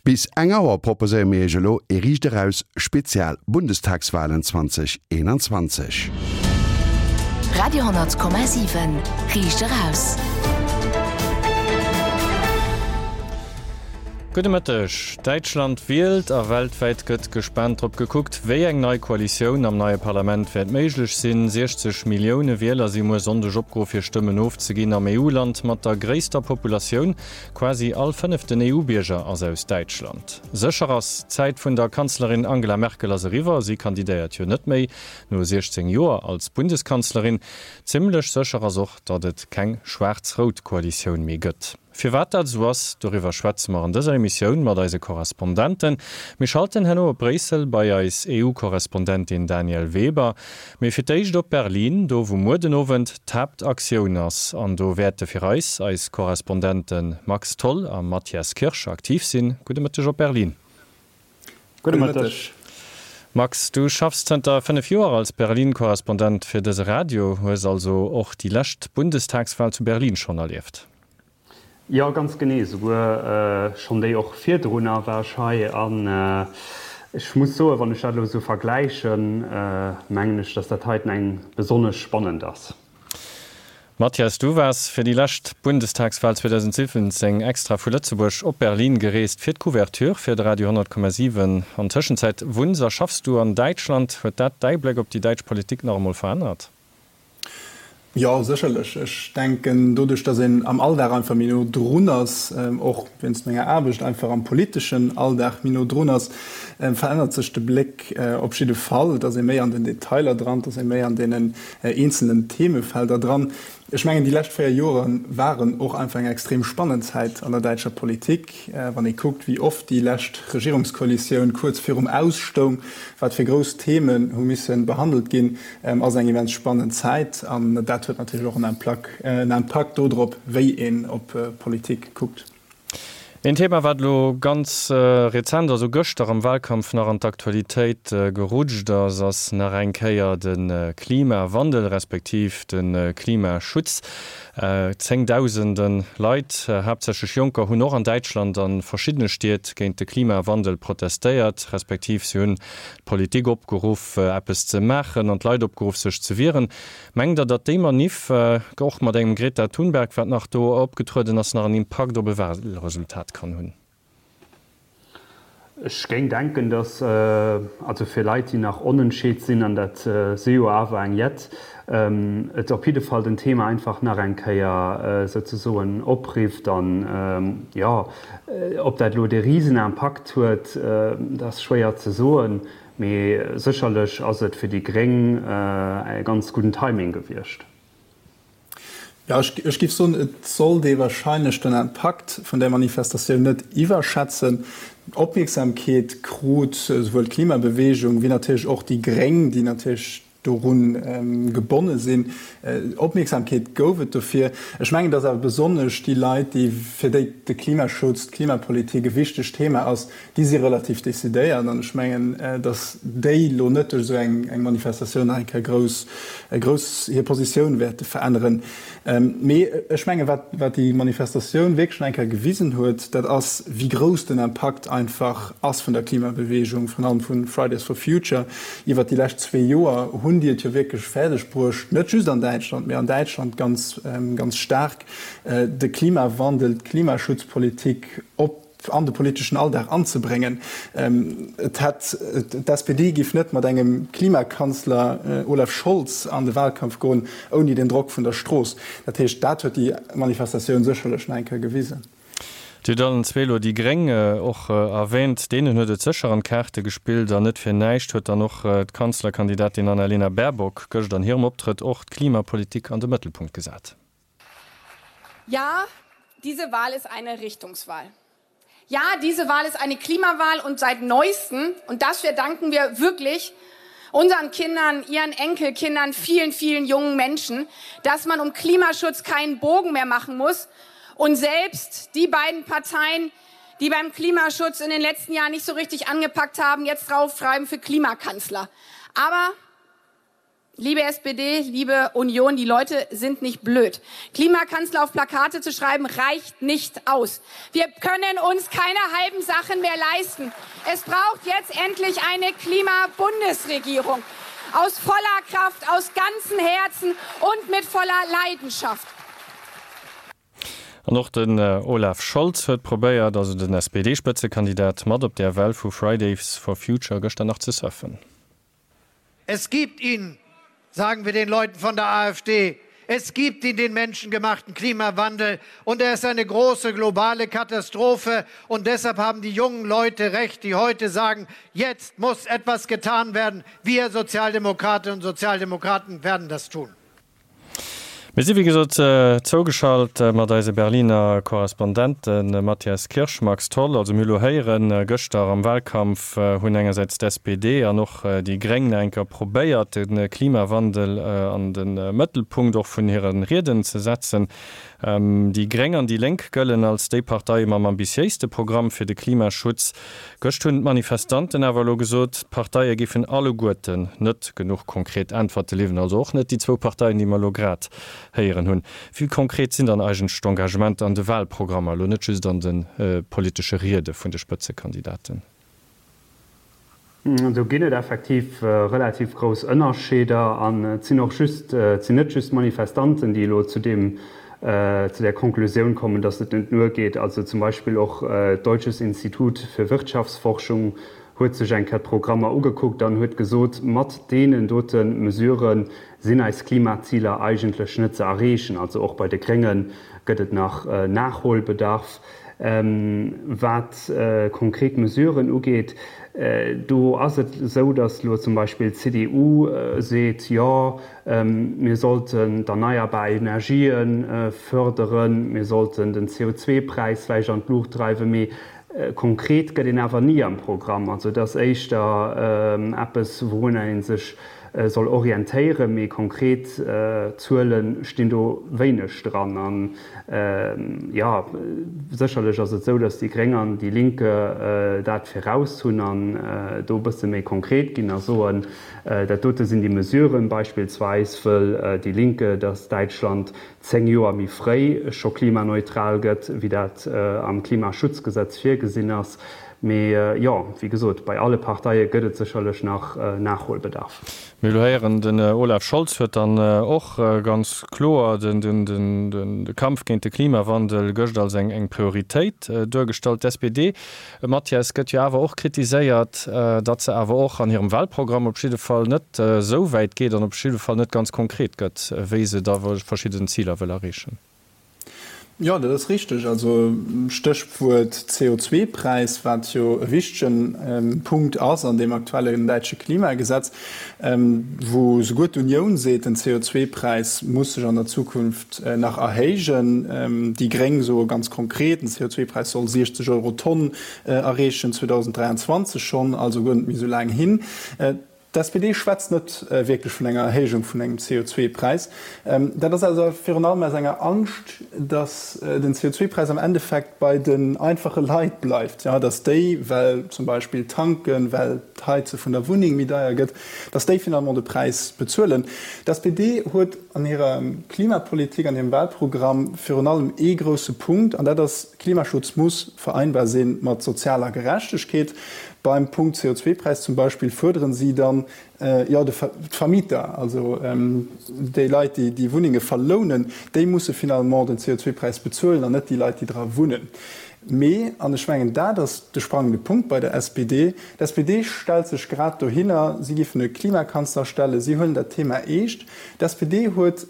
Bis eng Auer proposéiere mir Iech elo ee Riicht Eraus Spezial Bundestagswahlen 2021. Radio 10,7 Riicht Eraus. Gudde Mëtteg. Däitschland wielt a weltwäit gëtt gespaant drop gekuckt, wéi eng nei Koalitioun am neie Parlament wäert méiglech sinn. 60 Millioune Wieler si muer Sonndeg opgeruff hir Stëmmen ofzeginn am EU-Land mat der gréisster Populatioun. Quasi all fënneften EU-Bierger ass aus Däitschland. Sécher ass, d'Zäit vun der Kanzlerin Angela Merkel ass eriwwer. Si kandidéiert jo net méi, no 16 Joer als Bundeskanzlerin. Zimmlech sécher ass och, datt et keng schwaarz-rout Koalitioun méi gëtt. Firwat dat esou ass, doriwwer schwätze mer an dëser Emissioun mat eise Korrespondenten. Mir schalten herno op Bréissel bei eis EU-Korrespondentin Danièle Weber. Mee fir d'éischt op Berlin, do wou muer den Owend d'Haaptaktioun ass. An do wäerte fir eis eis Korrespondente Max Tholl a Mathias Kirsch aktiv sinn. Gudde Mëtteg op Berlin. Gudde Mëtteg. Max, du schaffs zënter 5 Joer als Berlin-Korrespondent fir dëse Radio, hues also och déi lescht Bundestagswal zu Berlin schonn erlieft. Jo, ganz genee, souguer schonn déi och virdrunner war ech hei an ech muss soen, wann ech dat elo esou vergläichen, mengen ech, dass dat heiten eng besonnesch spannend ass. Mathias, du waars fir déi lescht Bundestagswal 2017 extra vu Lëtzebuerg op Berlin gereest fir d'Couverture fir de Radio 100,7. An Tëschenzäit wunns a schaffs du an Däitschland. Huet dat däi Bléck op déi däitsch Politik nach emol verännert? Jo, sécherlech. Ech denken, doduerch, datt een am Alldag einfach méi no drun ass, och wéinst menger Aarbecht einfach am politeschen Alldag méi no drun ass, verännert sech de Bléck op jidde Fall. Et ass ee méi an den Detailer dran, et ass ee méi an deenen eenzelnen Themefelder dran. Ech mengen, déi lescht 4 Jore waren och einfach eng extrem spannend Zäit an der däitscher Politik. Wann ee kuckt, wéi oft déi lescht Regierungskoalitioun kuerz virum Aus stoung, wat fir grouss Themen hu misse behandelt ginn, ass eng immens spannend Zäit. An dat huet natierlech och en Impakt dodrop, wéi een op Politik kuckt. Een Thema, wat elo ganz rezent, also gëschter am Wahlkampf nach an d'Aktualitéit gerutscht ass, ass nach eng Kéier de Klimawandel, respektiv de Klimaschutz. Zéngdausende Leit, haaptsächlech Jonker, hunn och an Däitschland a verschiddene Stied géint de Klimawandel protestéiert, respektiv si hunn d'Politik opgeruff, eppes ze maachen an d'Leit opgeruff, sech ze wieren. Mengt Der, datt déi Maniff, och mat engem Greta Thunberg, wat nach do opgetrueden ass, nach en Impakt op e Wahlresultat kann hunn? Ech géing denken, datt, also fir Leit, déi nach onentscheet sinn, an dat si jo awer eng jett, et op jidde Fall den Thema einfach nach eng Kéier souzesoen oprifft. An, jo, ob dat elo dee Risenimpakt huet, dat ass schwéier ze soen. Mee sécherlech ass et fir déi Gréng e ganz gudden Timing gewiescht. Jo, ech géif soen, et sollt ee wahrscheinlech den Impakt vun där Manifestatioun net iwwerschätzen. Opmierksamkeet krut esouwuel d'Klimabeweegung wéi natierlech och déi Gréng, déi natierlech dorun gebonne sinn. Opmierksamkeet gouf et dofir. Ech mengen, dass awer besonnesch déi Leit, déi, fir déi de Klimaschutz, d'Klimapolitik e wichtegt Thema ass, déi si relativ decidéiert. An ech mengen, dass déi elo net duerch esou eng Manifestatioun nach eng Kéier grouss, grouss hir Positioun wäerte veränneren. Mee ech mengen, wat, wat déi Manifestatioun wierklech nach eng Kéier gewisen huet, dat ass, wéi grouss den Impakt einfach ass vun der Klimabeweegung, virun allem vu Fridays for Future. Iwwert déi lescht zwee Joer hunn déi et jo wierklech fäerdeg bruecht, net just an Däitschland, mee an Däitschland ganz, ganz staark, de Klimawandel, d'Klimaschutzpolitik op an de politeschen Alldag anzebréngen. Et hätt, d'SPD géif net mat engem Klimakanzler Olaf Scholz an de Wahlkampf goen, ouni den Drock vun der Strooss. Dat heescht, dat huet déi Manifestatioun sécherlech nach eng Kéier gewisen. Dir hutt allen zwee elo déi Gréng och erwähnt. Deenen huet et sécher an d'Kaarte gespillt an net fir näischt huet dann och d'Kanzlerkandidatin Annalena Baerbock gëscht an hirem Optrëtt och d'Klimapolitik an de Mëttelpunkt gesat. Ja, diese Wahl ist eine Richtungswahl. Ja, diese Wahl ist eine Klimawahl und seit neuestem und das verdanken wir wirklich unseren Kindern, ihren Enkelkindern, vielen, vielen jungen Menschen, dass man um Klimaschutz keinen Bogen mehr machen muss und selbst die beiden Parteien, die beim Klimaschutz in den letzten Jahren nicht so richtig angepackt haben, jetzt draufschreiben für Klimakanzler. Aber. Liebe SPD, liebe Union, die Leute sind nicht blöd. Klimakanzler auf Plakate zu schreiben, reicht nicht aus. Wir können uns keine halben Sachen mehr leisten. Es braucht jetzt endlich eine Klimabundesregierung. Aus voller Kraft, aus ganzem Herzen und mit voller Leidenschaft. An och den Olaf Scholz huet probéiert, also den SPD-Spëtzekandidat, mat op där Well vu Fridays for Future gëschter nach ze surfen. Es gibt ihn, sagen wir den Leuten von der AfD. Es gibt ihn den menschengemachten Klimawandel und er ist eine große globale Katastrophe und deshalb haben die jungen Leute recht, die heute sagen, jetzt muss etwas getan werden. Wir Sozialdemokratinnen und Sozialdemokraten werden das tun. Mir si wéi gesot zougeschalt mat eise Berliner Korrespondenten Mathias Kirsch, Max Tholl. Also mir hu lo héieren, gëschter am Wahlkampf hunn engersäits d'SPD an och déi Gréng nach eng Kéier probéiert, de Klimawandel an de Mëttelpunkt och vun hire Rieden ze setzen. Déi Gréng an déi Lénk gëllen als déi Parteie mam ambitiéiste Programm fir de Klimaschutz. Gëscht hunn d'Manifestanten awer elo gesot, d'Parteie géifen alleguerten net genuch konkret Äntwerte liwwen, also och net déi zwou Parteien, déi mer elo grad héieren hunn. Wéi konkret sinn dann eigentlech d'Engagementer an de Wahlprogrammer, elo net just an de politesche Riede vun de Spëtzekandidaten? Do ginn et effektiv relativ grouss Ënnerscheeder an et sinn och just, et sinn net just d'Manifestanten, déi elo zu deem, zu där Konklusioun kommen, datt et net duergeet. Also zum Beispill och d'Deutsches Institut für Wirtschaftsforschung huet sech eng Kéier d'Programmer ugekuckt an huet gesot, mat deenen dote Mesurë sinn eis Klimaziler eigentlech net ze erreechen. Also och bei de Grénge gëtt et nach Nachholbedarf. Wat konkret Mesuren ugeet, do ass et esou, datt elo zum Beispill d'CDU seet, jo, Mir sollten d'erneierbar Energië fërderen, mir sollten den CO2-Präis vläicht an d'Luucht dreiwen, mee konkret gëtt een awer ni am Programm. Also et ass éischter eppes, wourunner ee sech soll orientéieren, mee konkret Zuele stinn do wéineg dran. An jo, sécherlech ass et esou, datt déi Gréng an déi Linke dat viraus hunn an do e bësse méi konkret ginn a soen, Dat dote sinn déi Mesuren. Beispillsweis wëll déi Linke, datt Däitschland 10 Joer méi fréi scho klimaneutral gëtt, wéi dat am Klimaschutzgesetz virgesinn ass. Mee jo, wéi gesot, bei alle Parteie gëtt et sécherlech nach Nachholbedarf. Mir hu lo héieren, den Olaf Scholz huet dann och ganz kloer de Kampf géint de Klimawandel gëscht als eng Prioritéit duergestallt. D'SPD Mathias, gëtt jo awer och kritiséiert, datt se awer och an hirem Wahlprogramm op jidde Fall net esou wäit geet an op jidde Fall net ganz konkret gëtt, wéi se da verschidden Ziler wëll erreechen. Jo, dat ass richteg. Also Stéchwuert CO2-Präis, wat jo e wichtegen Punkt ass an deem aktuellen däitsche Klimagesetz, wou souguer d'Unioun seet, den CO2-Präis muss sech an der Zukunft nach erhéijen. Déi Gréng soe ganz konkret, den CO2-Präis soll 60 Euro d'Tonn erreechen, 2023 schonn, also guer net méi esou laang hin. D'SPD schwätzt net wierklech vun enger Erhéijung vun engem CO2-Präis. Dat ass also virun allem aus enger Angscht, datt den CO2-Präis am Endeffekt bei den einfache Leit bleift, datt déi, well zum Beispill tanken, well d'Heize vun der Wunneng méi deier gëtt, datt déi finalement de Präis bezuelen. D'SPD huet an hirer Klimapolitik, an hirem Wahlprogramm virun allem ee grousse Punkt, an dat ass, Klimaschutz muss vereinbar si mat sozialer Gerechtegkeet. Beim Punkt CO2-Präis zum Beispill fuerderen si dann, jo, d'Vermieter, also déi Leit, déi déi Wunnenge verlounen, déi musse finalement den CO2-Präis bezuelen an net déi Leit, déi dra wunnen. Mee, an ech mengen, dat ass de sprangende Punkt bei der SPD, d'SPD stellt sech grad dohinner, si géifen e Klimakanzler stellen, si huelen dat Thema eescht. D'SPD huet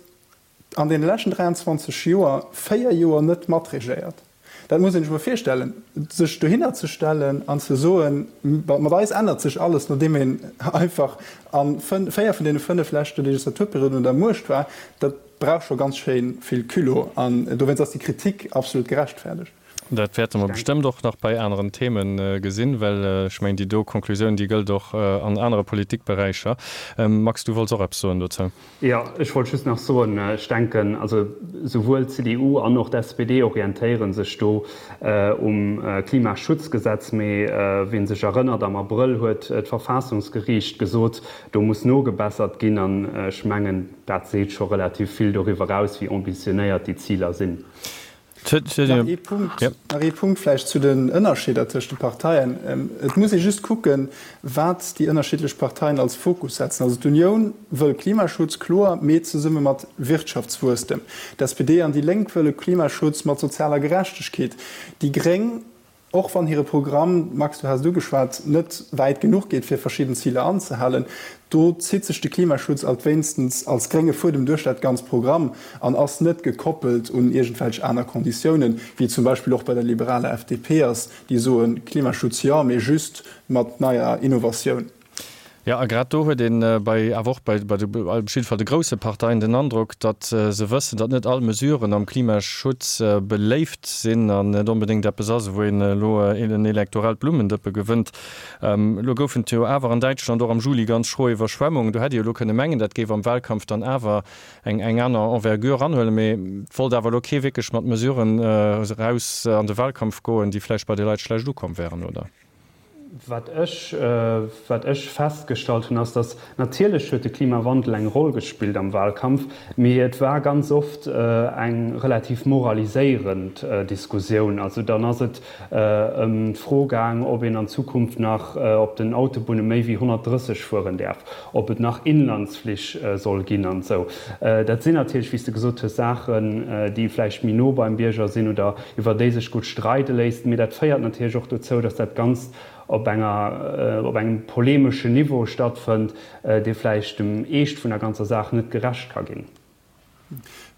an deene leschten 23 Joer véier Joer net matregéiert. Dat muss een sech emol virstellen, sech dohinner ze stellen an ze soen, mat eis ännert sech alles, nodeem een einfach a véier vun deene fënnef leschte Legislaturperioden un der Muecht war, dat brauch scho ganz schéi vill Culot. An dowéinst ass déi Kritik absolut gerechtfäerdegt. Dat wäerte mer bestëmmt och nach bei aneren Themen gesinn, well ech mengen, déi do Konklusioun, déi gëllt och an anere Politikberäicher. Max, du wollts och eppes soen dozou? Jo, ech wollt just nach soen, ech denken, also souwuel d'CDU an och d'SPD orientéiere sech do um Klimaschutzgesetz. Mee wien sech erënnert, am Abrëll huet d'Verfassungsgeriicht gesot, do muss nogebessert ginn. An ech mengen, dat seet scho relativ vill doriwwer aus, wéi ambitionéiert déi Ziler sinn. Nach ee Punkt, nach ee Punkt vläicht zu den Ënnerscheeder tëscht de Parteien. Et muss ee just kucken, wat déi ënnerschiddlech Parteien als Fokus setzen. Also d'Unioun wëll Klimaschutz, kloer, mee zesumme mat Wirtschaftswuesstem. D'SPD an déi Lénk wëlle Klimaschutz mat sozialer Gerechtegkeet. Déi Gréng Och wann hire Programm, Max, du has et ugeschwat, net wäit genuch geet, fir verschidden Ziler anzehalen, do zitt sech de Klimaschutz alt wéinstens als grénge Fuedem duerch dat ganz Programm an ass net gekoppelt un iergendwelch aner Konditiounen, wéi et zum Beispill och bei der liberaler FDP ass, déi soen, Klimaschutz jo, mee just mat neier Innovatioun. Jo, a grad do huet een bei, awer och bei, bei de, op jidde Fall de grousse Parteien den Androck, datt se wëssen, datt net all Mesuren am Klimaschutz beléift sinn an net onbedéngt eppes ass, wou een elo en elektorellt Blummendëppe gewënnt. Elo goufen et jo awer an Däitschland och am Juli ganz schro Iwwerschwemmungen. Do hätt ee jo elo kënne mengen, dat géif am Wahlkampf dann awer eng, eng aner Envergure anhuelen. Mee et wollt awer elo kee wierklech mat Mesuren eraus an de Wahlkampf goen, déi vläicht bei de Leit schlecht ukomm wären, oder? Wat ech, wat ech festgestallt hunn, ass, datt natierlech huet de Klimawandel eng Roll gespillt am Wahlkampf, mee et war ganz oft eng relativ moraliséierend Diskussioun. Also dann ass et ëm d'Fro gaang, ob een an Zukunft nach op den Autobunne méi wéi 130 fueren däerf, ob et nach Inlandsflich soll ginn an esou. Dat sinn natierlech, wéi s de gesot hues, Saachen, déi vläicht méi no beim Bierger sinn oder iwwer déi sech gutt streide léisst, mee dat féiert natierlech och dozou, datt dat Ganzt op enger, op engem polemeschen Niveau stattfënnt, dee vläicht dem Eescht vun der ganzer Saach net gerecht ka ginn.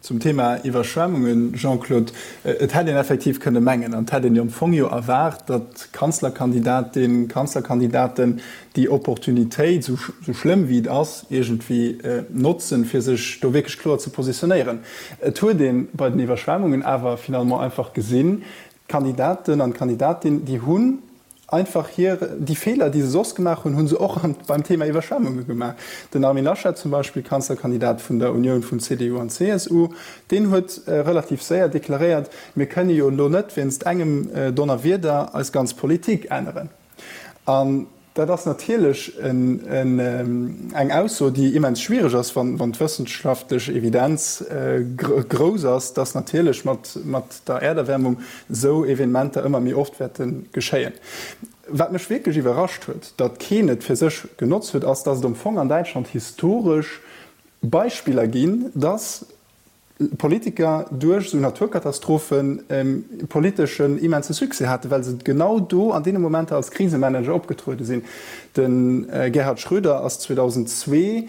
Zum Thema Iwwerschwemmungen, Jean-Claude, et hätt een effektiv kënne mengen, an et hätt een jo am Fong jo erwaart, datt Kanzlerkandidatin, Kanzlerkandidaten déi Opportunitéit, esou schlëmm wéi et ass, iergendwéi notzen, fir sech do wierklech kloer ze positionéieren. Et huet ee bei den Iwwerschwemmungen awer finalement einfach gesinn, d'Kandidaten an d'Kandidatin, déi hunn einfach hir, déi Feeler, déi se soss gemaach hunn, hu se och beim Thema Iwwerschwemmunge gemaach. Den Armin Laschet zum Beispill, Kanzlerkandidat vun der Unioun vun CDU an CSU, deen huet relativ séier deklaréiert, Mir kënne jo elo net wéinst engem Donnerwieder eis ganz Politik änneren. An dat ass natierlech eng Ausso, déi immens schwiereg ass, wann d'wëssenschaftlech Evidenz grouss ass, dass natierlech mat der Äerderwärmung esou Evenementer ëmmer méi oft wäerte geschéien. Wat mech wierklech iwwerrascht huet, datt keen et fir sech genotzt huet, ass, datt et am Fong an Däitschland historesch Beispiller ginn, datt Politiker duerch esou Naturkatastrophen politeschen immense Succès haten, well se genau do an deene Momenter als Krisemanager opgetruede sinn. De Gerhard Schröder ass 2002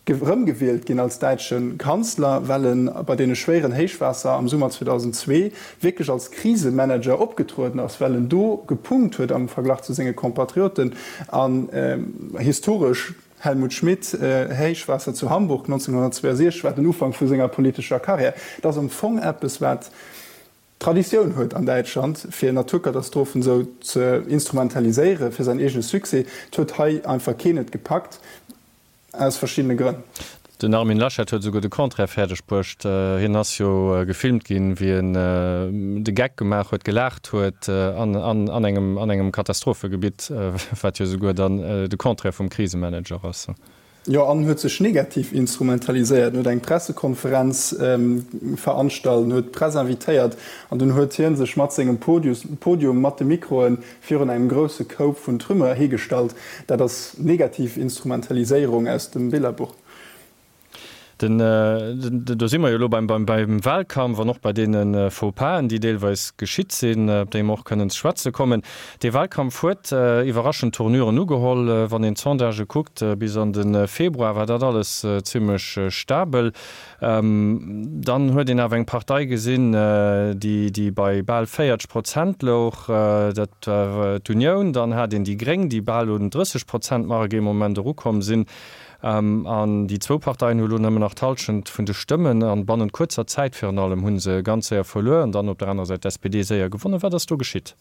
erëmgewielt ginn als däitsche Kanzler, well e bei deene schwéieren Héichwaasser am Summer 2002 wierklech als Krisemanager opgetrueden ass, well en do gepunkt huet am Verglach zu senge Compatrioten an historesch Helmut Schmidt, Héichwaasser zu Hamburg 1962 war den Ufank vu senger politescher Karriär. Et ass am Fong eppes, wat Traditioun huet an Däitschland, fir Naturkatastrophen esou ze instrumentaliséiere fir säin eegene Succès. Et huet hei einfach keen et gepackt, aus verschiddene Grënn. Den Armin Laschet huet esouguer de Contraire fäerdeg bruecht. Hien ass jo gefilmt ginn, wéi en de Geck gemaach huet, gelaacht huet an engem an engem Katastrophegebitt, wat jo esouguer dann de Contraire vum Krisemanager ass. Jo, an huet sech negativ instrumentaliséiert. En huet eng Pressekonferenz veranstalt, en huet d'Press invitéiert an dunn huet hie sech mat sengem Podium mat de Mikroe virun engem grousse Koup vun Trümmer higestallt. Dat ass negativ Instrumentaliséierung aus dem Billerbuch. Den, do si mer jo elo beim, beim Wahlkampf an och bei deene Faux-pas'en, déi deelweis geschitt sinn, op déi mer och kënnen ze schwätze kommen. Dee Wahlkampf huet iwwerraschend Tournuren ugeholl. Wann een d'Sondagë kuckt, bis an de Februar war dat alles zimlech stabel. Dann huet een awer eng Partei gesinn, déi, déi bei bal 40 Prozent louch, dat war d'Unioun. Dann hat een déi Gréng, déi bal un d'Drësseg-Prozent-Mark ee Moment erukomm sinn. An déi zwou Parteien hu lo nëmmen nach d'Hallschent vun de Stëmmen an bannent kuerzer Zäit virun allem hu se ganz séier verluer an dann op der anerer Säit d'SPD séier gewonnen. Wat ass do geschitt?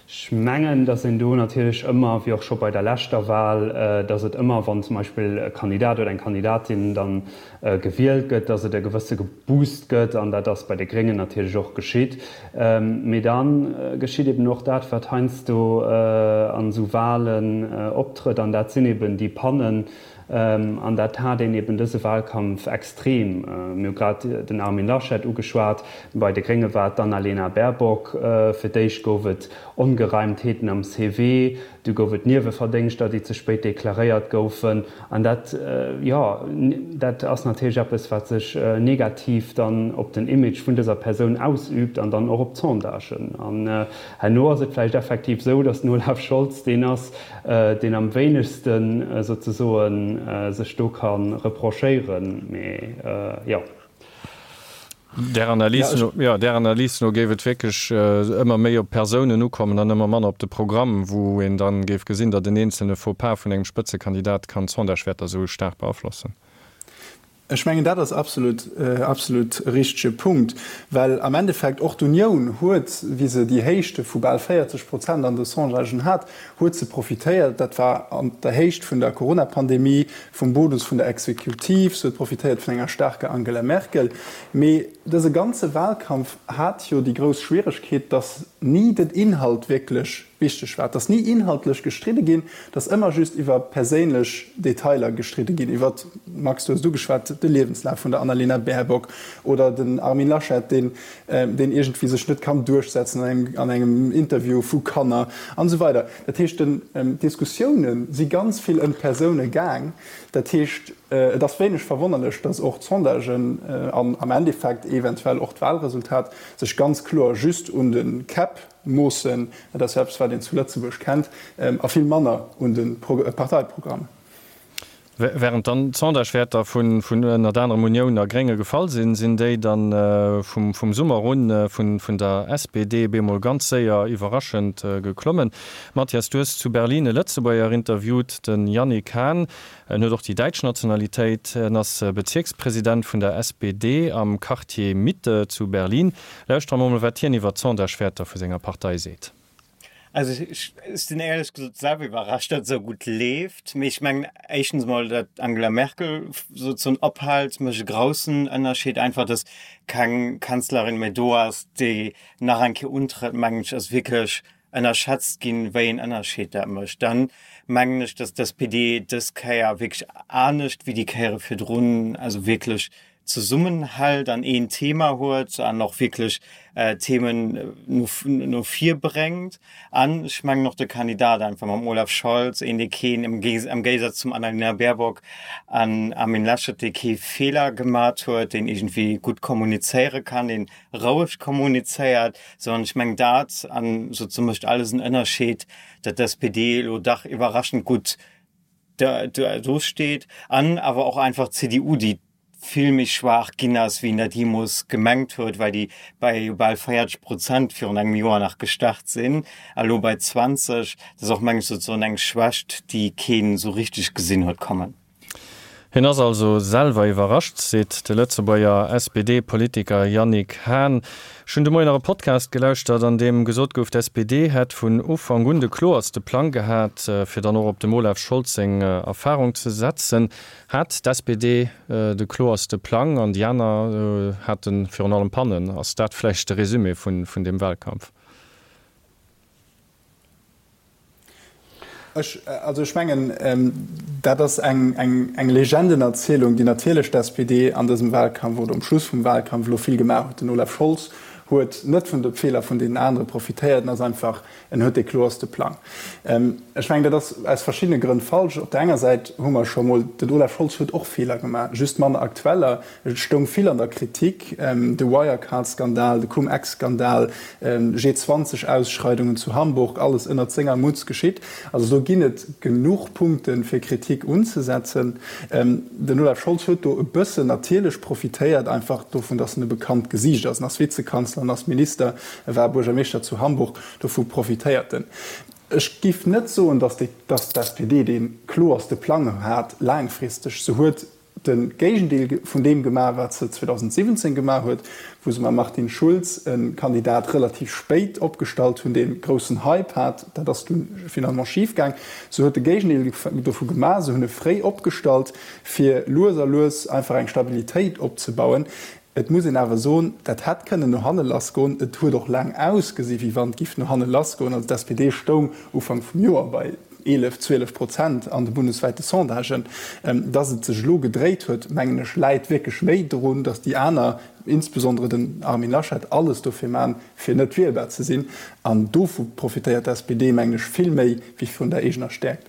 Ech mengen, datt een do natierlech ëmmer, wéi och scho bei der leschter Wahl, datt et ëmmer, wann zum Beispill e Kandidat oder eng Kandidatin dann gewielt gëtt, datt et e gewësse Boost gëtt, an dat ass bei de Gréngen natierlech och geschitt. Mee da geschitt eben och dat, wat heiansdo an esou Wahlen optrëtt, an dat sinn eben déi Pannen, An dat hat een eben dëse Wahlkampf extrem. Mir hu grad den Armin Laschet ugeschwat, bei de Grénge war et d'Annalena Baerbock. Fir d'éischt gouf et Ongereimtheeten am CV, du gouf et Nieweverdéngschter, déi ze spéit deklaréiert goufen. An dat, jo, dat ass natierlech eppes, wat sech negativ dann op den Image vun dëser Persoun ausüübt an dann och op d'Sondagen. An herno ass et vläicht effektiv esou, datt den Olaf Scholz deen ass, deen am wéinegste souzesoen sech do ka reprochéieren, mee jo. Där Analys no, jo, där Analys no géif et wierklech ëmmer méi op d'Persounen ukommen an ëmmer manner op de Programm, wou een dann géif gesinn, datt en eenzelne Faux-pas vun engem Spëtzekandidat kann d'Sondagewäerter esou staark beaflossen. Ech mengen, dat ass absolut, absolut e richtege Punkt, well am Endeffekt och d'Unioun huet, wéi se déi Héichte vu bal 40 Prozent an de Sondagen hat, huet se profitéiert. Dat war an der Héicht vun der Coronapandemie, vum Bonus vun der Exekutiv, se huet profitéiert vun enger staarker Angela Merkel. Mee dëse ganze Wahlkampf hat jo déi grouss Schwieregkeet, datt ni den Inhalt wierklech Wichteg war, et ass ni inhaltlech gestridde ginn, et ass ëmmer just iwwer perséinlech Detailer gestridde ginn, iwwer, Max, du hues et ugeschwat, de Liewenslaf vun der Annalena Baerbock oder den Armin Laschet, deen, deen iergendwéi sech net kann duerchsetzen an engem, an engem Interview vu Kanner an esou weider. Dat heescht, den, d'Diskussioune si ganz vill ëm d'Persoune gaang. Dat heescht, et ass wéineg verwonnerlech, datt och d'Sondagen an am Endeffekt eventuell och d'Wahlresultat sech ganz kloer just un de Käpp Moossen, dat ass jo eppes, wat een zu Lëtzebuerg kennt, a vill manner un de Parteiprogramm. Während dann d'Sondagewäerter vun ënnert anerem Unioun a Grénge gefall sinn, sinn déi dann vum Summer un vun der SPD bemol ganz séier iwwerraschend geklommen. Mathias, du hues zu Berlin e Lëtzebuerger interviewt, de Yannick Hahn. En huet och déi däitsch Nationalitéit. En ass Bezierkspresident vun der SPD am Quartier Mitte zu Berlin. Lauschtere mer mol, wat hien iwwer d'Sondagewäerter vu senger Partei seet. Also ech sinn éierlech gesot selwer iwwerrascht, datt et esou gutt leeft. Mee ech mengen éischtens emol, datt d'Angela Merkel sozesoen ophält, mécht e groussen Ënnerscheed. Einfach, datt keng Kanzlerin méi do ass, déi nach eng Kéier untrëtt, mengen ech, ass wierklech ënnerschätzt ginn, wéi een Ënnerscheed dat mécht. Dann mengen ech, datt d'SPD dës Kéier wierklech anescht wéi déi Kéiere virdrun, also wierklech zesummenhält an een Thema huet an och wierklech Themen no no vir bréngt. An ech mengen och de Kandidat einfach mam Olaf Scholz, een dee keen, am Géisaz zum Annalena Baerbock an Armin Laschet, dee kee Feeler gemat huet, deen iergendwéi gutt kommunizéiere kann, deen roueg kommunizéiert, sondern ech mengen dat, an sozusagen mécht alles en Ënnerscheed, datt d'SPD elo dach iwwerraschend gutt do steet an awer och einfach d'CDU, déi vill méi schwaach ginn ass, wéi een dat jeemools gemengt huet, well déi bei bal 40 Prozent virun engem Joer nach gestart sinn a elo bei 20. Dat ass och, meng ech, sozusagen eng Schwächt, déi keen esou richteg gesinn huet kommen. Hien ass also selwer iwwerrascht, seet de Lëtzebuerger SPD-Politiker Yannick Hahn. Ech hunn de Moien nach e Podcast gelauschtert, an deem gesot gouf, d'SPD hätt vun Ufank un de kloerste Plang gehat, fir dann och op dem Olaf Scholz seng Erfarung ze setzen. Hat d'SPD de kloerste Plang an déi aner hate virun allem Pannen? Ass dat vläicht de Resumé vun deem Wahlkampf? Ech, also ech mengen, dat ass eng, eng, eng Legendenerzielung, déi natierlech d'SPD an dësem Wahlkampf oder um Schluss vum Wahlkampf elo vill gemaach huet. Den Olaf Scholz huet net vun de Feeler vun deenen anere profitéiert, en ass einfach, en huet dee kloerste Plang. Ech mengen, dat ass aus verschiddene Grënn falsch. Op der enger Säit hu mer scho mol, den Olaf Scholz huet och Feeler gemaach, just manner aktueller. Et stoung vill an der Kritik, de Wirecard-Skandal, de Cum-Ex-Skandal, G20-Ausschreidungen zu Hamburg, alles ënnert senger Mutz geschitt. Also do ginn et genuch Punkten, fir Kritik unzesetzen. Den Olaf Scholz huet do e bëssen natierlech profitéiert, einfach dovun, datt en e bekannt Gesiicht ass. En ass Vizekanzler, en ass Minister, e war Buergermeeschter zu Hamburg, dovu profitéiert en. Ech giff net soen, datt déi, datt d'SPD dee kloerste Plang hat laangfristeg. Se huet de Géigendeel vun deem gemaach, wat se 2017 gemaach huet, wou se mam Martin Schulz e Kandidat relativ spéit opgestallt hunn, dee groussen Hype hat. Dat ass dunn finalement schif gaang. Se huet de Géigendeel dovu gemaach. Se hunn e fréi opgestallt, fir lues a lues einfach eng Stabilitéit opzebauen. Et muss een awer soen, dat hätt kënnen no hanne lassgoen. Et huet och laang ausgesi wéi wann et giff no hanne lassgoen. Also d'SPD stoung Ufank vum Joer bei 11, 12 Prozent an de bundeswäite Sondagen. Datt et sech elo gedréit huet, mengen ech, läit wierklech méi drun, datt déi aner, insbesondere den Armin Laschet, alles dofir man, fir net wielbar ze sinn. An dovu profitéiert d'SPD, mengen ech, vill méi wéi vun der eegener Stäerkt.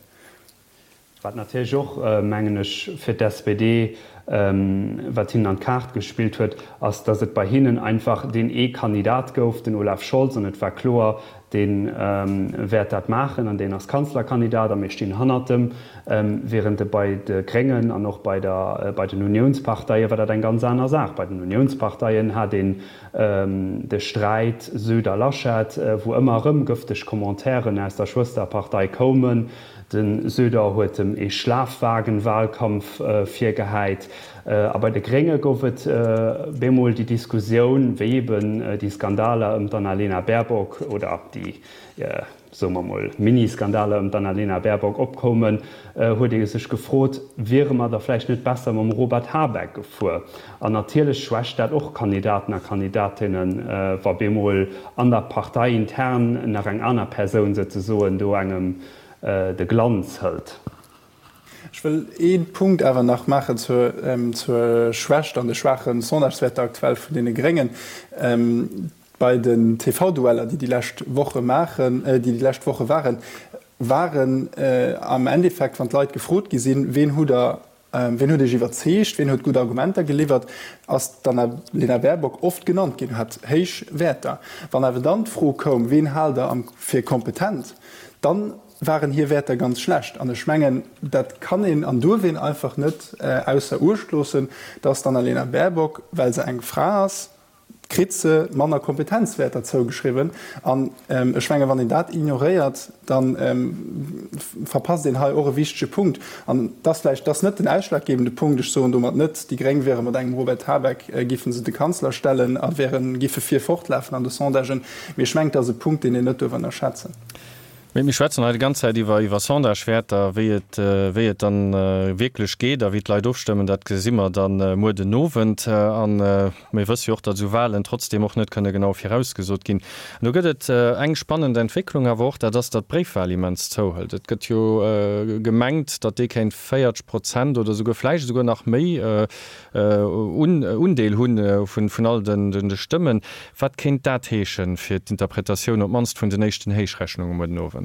Wat natierlech och, mengen ech, fir d'SPD, wat hinnen an d'Kaart gespillt huet, ass, datt et bei hinnen einfach deen ee Kandidat gouf, den Olaf Scholz, an et war kloer, dee wäert dat maachen an deen ass Kanzlerkandidat a mir stinn hannert em. Während et bei de Gréngen an och bei der, bei den Uniounsparteie war dat eng ganz aner Saach. Bei den Uniounsparteien hat een de Sträit Söder-Laschet, wou ëmmer erëm gëfteg Commentairen aus der Schwësterpartei koumen, De Söder huet em ee Schlafwagenwahlkampf virgehäit. A bei de Grénge gouf et bemol déi Diskussioun, wéi eben déi Skandaler ëm d'Annalena Baerbock oder déi, soe mer mol, Mini-Skandaler ëm d'Annalena Baerbock opkoumen, huet ee sech gefrot, wiere mer da vläicht net besser mam Robert Habeck gefuer? An natierlech schwächt dat och Kandidaten a Kandidatinnen, wa bemol an der Partei intern nach eng aner Persoun souzesoen do engem de Glanz hëlt. Ech wëll ee Punkt awer nach maachen zur Schwächt an de schwaache Sondagewäerter aktuell vun deene Gréngen. Bei den TV-Dueller, déi déi lescht Woche maachen, déi déi lescht Woche waren, waren am Endeffekt, wann d'Leit gefrot gi sinn, Ween hutt Der Wien huet Iech iwwerzeegt, wien huet gutt Argumenter geliwwert, ass d'Annalena Baerbock oft genannt ginn, hat héich Wäerter. Wann awer dann d'Fro koum, wien haalt Der fir kompetent, dann waren hir Wäerter ganz schlecht. An ech mengen, dat kann een an duerf een einfach net ausser Uecht loossen, dass d'Annalena Baerbock, well se eng Fra ass, kritt se manner Kompetenzwäerter zougeschriwwen. An ech menge wann een dat ignoréiert, da verpasst een hei och e wichtege Punkt. An et ass vläicht, et ass net den ausschlaggebende Punkt, ech soen domat net, déi Gréng wiere mat engem Robert Habeck, géife se de Kanzler stellen a wären, géife vir fortlafen an de Sondagen, mee ech mengen, et ass e Punkt, deen een net duerf ënnerschätzen. Mee mir schwätzen hei déi ganz Zäit iwwer iwwer Sondagewäerter, wéi et wéi et dann wierklech geet a wéi d'Leit ofstëmmen, dat gesi mer dann muer den Owend. A mir wësse jo och, datt esou Wahlen trotzdeem och net kënne genau virausgesot ginn. An do gëtt et eng spannend Entwécklung awer och, dat ass, datt d'Bréifwahl immens zouhëlt. Et gëtt jo gemengt, datt déi kéint 40 Prozent oder esouguer vläicht esouguer nach méi Undeel hu vun all de Stëmmen. Wat kéint dat heeschen fir d'Interpretatioun op d'mannst vun den éischten Héichrechnunge muer den Owend?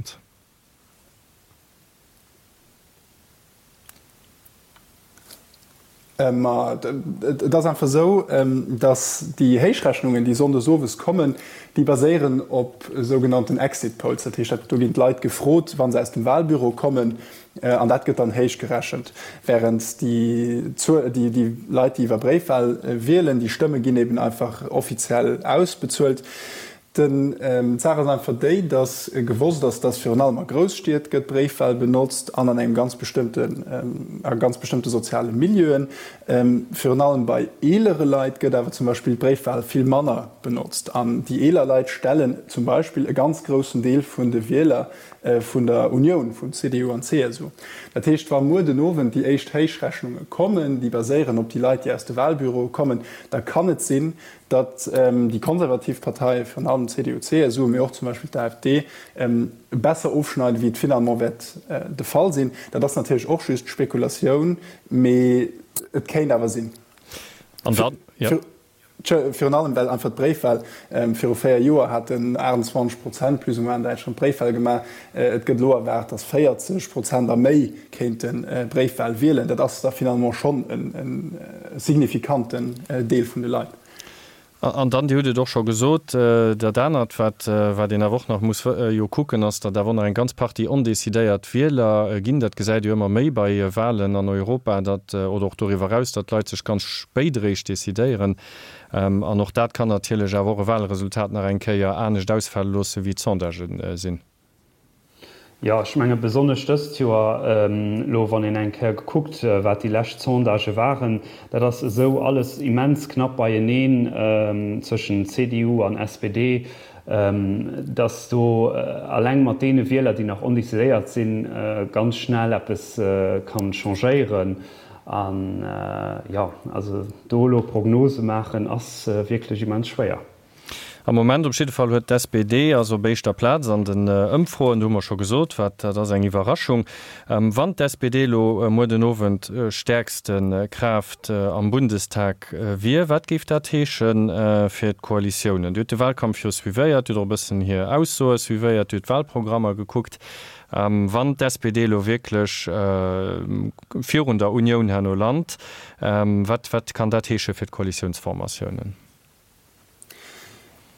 Ma et ass einfach esou, datt déi Héichrechnungen, déi sonndes owes kommen, déi baséieren op sougenannten Exit Polls. Dat heescht, do ginn d'Leit gefrot, wa se aus dem Wahlbüro kommen, An dat gëtt dann héich gerechent. Während déi déi Leit, déi iwwer Bréifwahl wielen, déi Stëmme ginn eben einfach offiziell ausbezuelt. Den d'Saach ass einfach déi, datt gewosst ass, datt virun allem a Grousstied gëtt Bréifwahl benotzt an an engem ganz bestëmmten, a ganz bestëmmte soziale Milieuen. Virun allem bei eelere Leit gëtt awer zum Beispill d'Bréifwahl vill manner benotzt. An déi eeler Leit stellen zum Beispill e ganz groussen Deel vun de Wieler vun der Unioun vun CDU an CSU. Dat heescht, wa muer den Owend déi éischt Héichrechnunge kommen, déi baséieren op déi Leit, déi aus de Wahlbüroe kommen, da kann et sinn, datt déi konservativ Parteien, virun allem CDU, CSU, mee och zum Beispill d'AfD, besser ofschneiden, wéi et finalement wäert de Fall sinn. Dat ass natierlech och just Spekulatioun, mee et kéint awer sinn. An dann, jo. Virun allem well einfach d'Bréifwahl, viru 4 Joer haten 28 Prozent plus ou moins an Däitschland Bréifwahl gemaach, et gëtt elo erwaart, datt 40 Prozent a méi kéinte Bréifwahl wielen. Dat ass da finalement schonn e signifikanten Deel vun de Leit. An dann, Dir hutt et och scho gesot, dat anert, wat een awer och nach muss jo kucken, ass, datt awer och nach eng ganz Partie ondecidéiert Wieler ginn. Dat gesäit ee jo ëmmer méi bei Wahlen an Europa, datt, oder och doriwwer eraus, datt d'Leit sech ganz spéit eréischt decidéieren. An och dat kann natierlech awer och e Wahlresultat nach eng Kéier anescht ausfale loosse wéi d'Sondagen sinn. Jo, ech menge besonnesch dëst Joer, elo wann een eng Kéier gekuckt, wat déi lescht Sondagë waren, dat ass esou alles immens knapp beieneen zwëschen CDU an SPD, datt do alleng mat deene Wieler, déi nach ondecidéiert sinn, ganz schnell eppes kann changéieren. An jo, also do elo Prognose maachen ass wierklech immens schwéier. Am Moment op jidde Fall huet d'SPD ass op éischter Plaz an den Ëmfroen. Do hu mer scho gesot, wat dat ass, eng Iwwerraschung. Wann d'SPD elo muer den Owend stäerkste Kraaft am Bundestag wier, wat géif dat heesche fir d'Koalitiounen? Dir hutt de Wahlkampf jo suivéiert, Dir hutt och e bëssen hir Aussoe suivéiert, Dir hutt d'Wahlprogrammer gekuckt. Wann d'SPD elo wierklech virun der Unioun herno lant, wat wat kann dat heesche fir d'Koalitiounsformatiounen?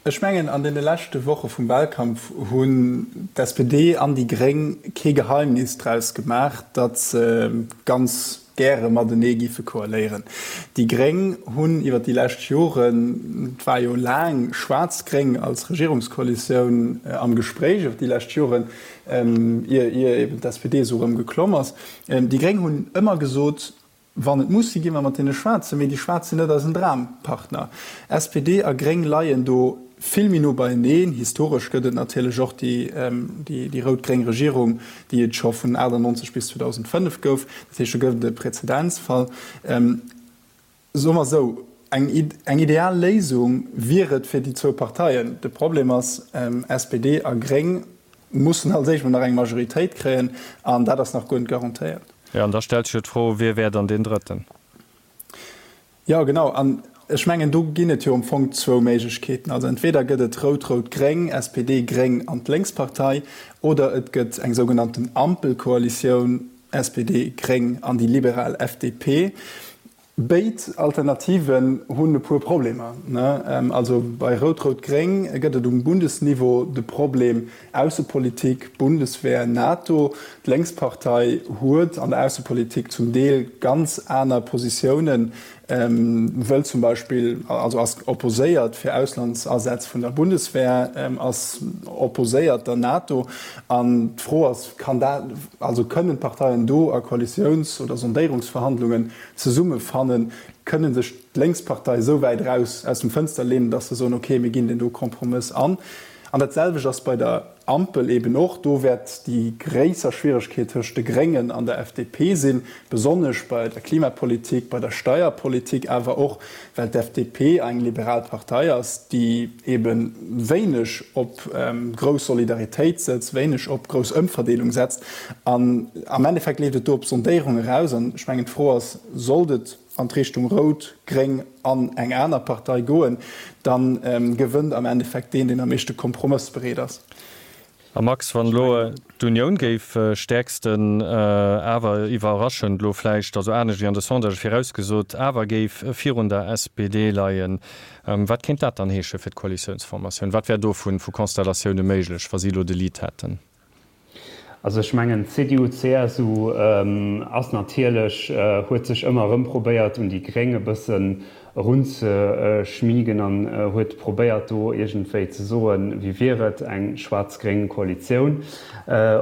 Ech mengen, an deene leschte Woche vum Wahlkampf hunn d'SPD an déi Gréng kee Geheimnis draus gemaach, datt se ganz gäre matenee giffe koaléieren. Déi Gréng hunn iwwer déi lescht Joren, et war jo laang Schwaarz-Gréng als Regierungskoalitioun am Gespréich iwwer déi lescht Joren, ier eben d'SPD esou erëm geklomm ass, déi Gréng hunn ëmmer gesot, Wann et muss sinn, gi mer mat deene Schwaarzen, mee déi Schwaarz sinn net eisen Drampartner. SPD a Gréng leien do vill méi no beieneen. Historesch gëtt et natierlech och déi rout-gréng Regierung, déi et scho vun 98 bis 2005 gouf. Dat heescht, do gëtt et e Präzedenzfall. Soe mer esou, eng ideal Léisung wier et fir déi zwou Parteien. De Problem ass, SPD a Gréng mussen als éischt mol nach eng Majoritéit kréien, an dat ass nach guer net garantéiert. Jo, an da stellt sech jo d'Fro, Wie wär dann deen Drëtten? Jo, genau. An ech mengen, do ginn et jo am Fong zwou Méiglechkeeten. Also entweder gëtt et Rout-Rout-Gréng, SPD, Gréng an d'Lénkspartei, oder et gëtt eng sougenannten Ampelkoalitioun, SPD, Gréng an déi liberal FDP. Béid Alternativen hunn e puer Problemer. Also bei Rout-Rout-Gréng gëtt et um Bundesniveau de Problem Aussepolitik, Bundeswehr, NATO. D'Lénkspartei huet an der Aussepolitik zum Deel ganz aner Positiounen, wëll zum Beispill, also ass opposéiert fir Auslandsasätz vun der Bundeswehr, ass opposéiert der NATO. An d'Fro ass, kann dat, also kënnen d'Parteien do a Koalitiouns oder Sondéierungsverhandlungen zesummefannen, kënne sech d'Lénkspartei esou wäit eraus aus dem Fënster leenen, datt se soen, okay, mir ginn deen do Kompromëss an. An dat selwecht ass bei der Ampel eben och. Do wäert déi gréisser Schwieregkeet tëscht de Gréngen an der FDP sinn, besonnesch bei der Klimapolitik, bei der Steierpolitik, awer och well d'FDP eng liberal Partei ass, déi ebe wéineg op grouss Solidaritéit sëtzt, wéineg op grouss Ëmverdeelung setzt. An am Endeffekt leeft et do op Sondéierung eraus. An ech mengen, d'Fro ass, Sollt et an d'Richtung Rout, Gréng an eng aner Partei goen, da gewënnt am Endeffekt deen, deen am meeschte kompromëssbereet ass. A Max, wann elo d'Unioun géif stäerksten, awer iwwerraschend elo vläicht, also anescht wéi an de Sondagë virausgesot, awer géif virun der SPD leien, wat kéint dat dann heesche fir d'Koalitiounsformatioun? Wat wär do vu Konstellatioune méiglech, wa si elo de Lead hätten? Also ech mengen, d'CDU-CSU ass natierlech, huet sech ëmmer erëm probéiert un déi Gréng e bëssen erunzeschmiegen an huet probéiert do iergendwéi ze soen, wéi wier et, eng schwaarz-gréng Koalitioun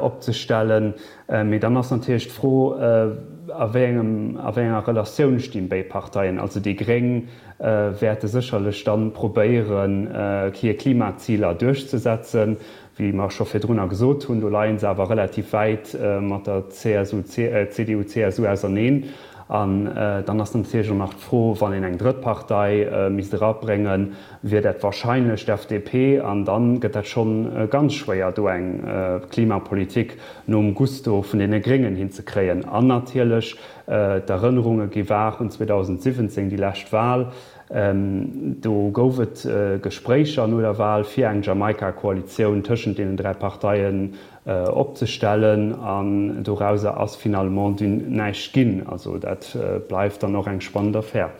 opzestellen. Mee dann ass natierlech d'Fro, a wéi engem, a wéi enger Relatioun stinn béid Parteien. Also déi Gréng wäerte sécherlech dann probéieren, hir Klimaziler duerchzesetzen. Wéi mer scho virdrunner gesot hunn, do leie se awer relativ wäit mat der CSU, CDU-CSU auserneen. An dann ass natierlech och nach d'Fro, wann een eng drëtt Partei misst erabréngen, wier dat wahrscheinlech d'FDP. An da gëtt dat schonn ganz schwéier, do eng Klimapolitik nom Gusto vun deene Gréngen hinzekréien. An natierlech, d'Erënnerunge gi waach un 2017, déi lescht Wahl, Do gouf et Gespréicher no der Wal, fir eng Jamaika-Koalitioun tëschent deenen 3 Parteien opzestellen, an dorauser ass finalement dunn näischt ginn. Also dat bleift dann och eng spannend Affär.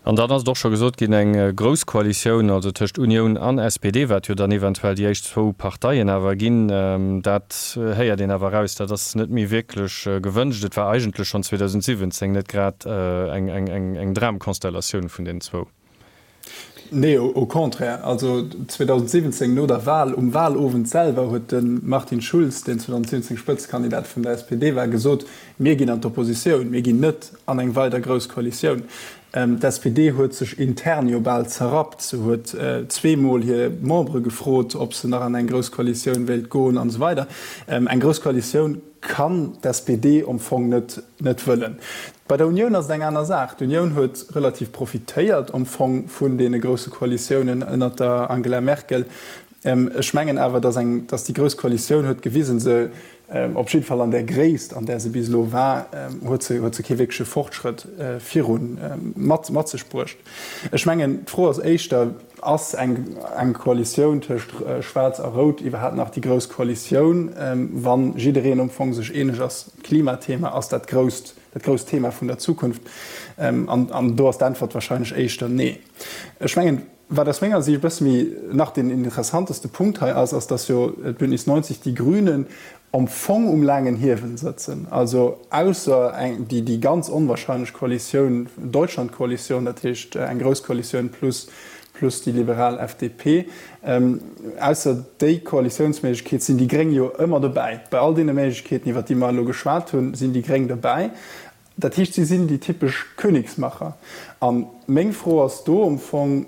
An dann ass et och scho gesot ginn, eng grouss Koalitioun, also tëscht Unioun an SPD, wat jo dann eventuell déi éischt zwou Parteien awer ginn, dat héiert een awer eraus, dat ass net méi wierklech gewënscht. Et war eigentlech schonn 2017 net grad eng Dramkonstellatioun vun deenen zwou. Nee, au contraire. Also 2017 no der Wahl, um Wahlowend selwer huet de Martin Schulz, deen 2017 Spëtzekandidat vun der SPD war, gesot, Mir ginn an d'Oppositioun, mir ginn net an eng weider grouss Koalitioun. D'SPD huet sech intern jo bal zerrappt. Se huet zweemol hir Membere gefrot, ob se nach an eng grouss Koalitioun wéilt goen an esou weider. Eng grouss Koalitioun kann d'SPD am Fong net net wëllen. Bei der Unioun ass et eng aner Saach. D'Unioun huet relativ profitéiert am Fong vun deene grousse Koalitiounen ënnert der Angela Merkel. Ech mengen awer, datt eng, datt déi grouss Koalitioun huet gewisen, se, op jidde Fall an där Gréisst, an där se bis elo war, huet se, huet se kee wierkleche Fortschrëtt viru mat, mat sech bruecht. Ech mengen, d'Fro ass éischter, Ass eng, eng Koalitioun tëscht Schwaarz a Rout iwwerhaapt nach déi grouss Koalitioun, wa jiddereen am Fong sech eeneg ass, d'Klimathema ass dat grousst, dat grousst Thema vun der Zukunft? An, an do ass d'Äntwert wahrscheinlech éischter nee. Ech mengen, Wat aus menger Siicht e bësse méi nach deen interessanteste Punkt hei ass, ass, dass jo d'Bündnis 90 Die Grünen am Fong um laangen Hiewel sëtzen. Also ausser eng, déi, déi ganz onwahrscheinlech Koalitioun, Deutschlandkoalitioun, dat heescht eng grouss Koalitioun plus, plus déi liberal FDP, ausser déi Koalitiounsméiglechkeet sinn déi Gréng jo ëmmer dobäi. Bei all deene Méiglechkeeten, iwwert déi mer elo geschwat hunn, sinn déi Gréng dobäi. Dat heescht, si sinn déi typesch Königsmacher. A meng Fro ass do am Fong,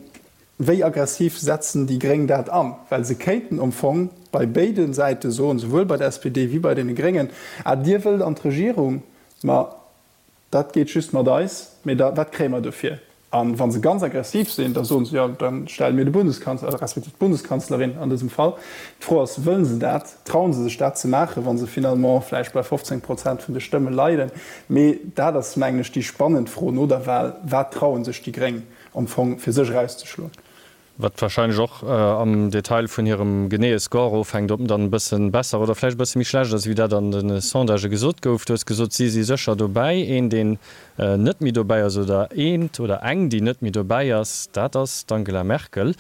Wéi aggressiv setzen déi Gréng dat an? Well se kéinten am Fong bei béide Säite soen, souwuel bei der SPD wéi bei deene Gréngen, Ah, Dir wëllt an d'Regierung, ma dat geet just mat eis, mee da, wat kréie mer dofir? A wa se ganz aggressiv sinn, da soen se, jo, da stelle mir de Bundeskanzler, respektiv d'Bundeskanzlerin an dësem Fall. D'Fro ass, Wëllen se dat? Trauen se sech dat ze maachen, wa se finalement vläicht bei 15 Prozent vun de Stëmme leiden? Mee dat ass, mengen ech, déi spannend Fro no der Wahl, Wat trauen sech déi Gréng am Fong fir sech erauszeschloen? Wat wahrscheinlech och am Detail vun hirem geneeë Score ofhänkt, ob en dann e bësse besser oder vläicht e bësse méi schlecht ass, wéi dat an de Sondagë gesot gouf. Du hues gesot, si si sécher dobäi. Een, deen net méi dobäi ass, oder eent oder eng, déi net méi dobäi ass, dat ass d'Angela Merkel.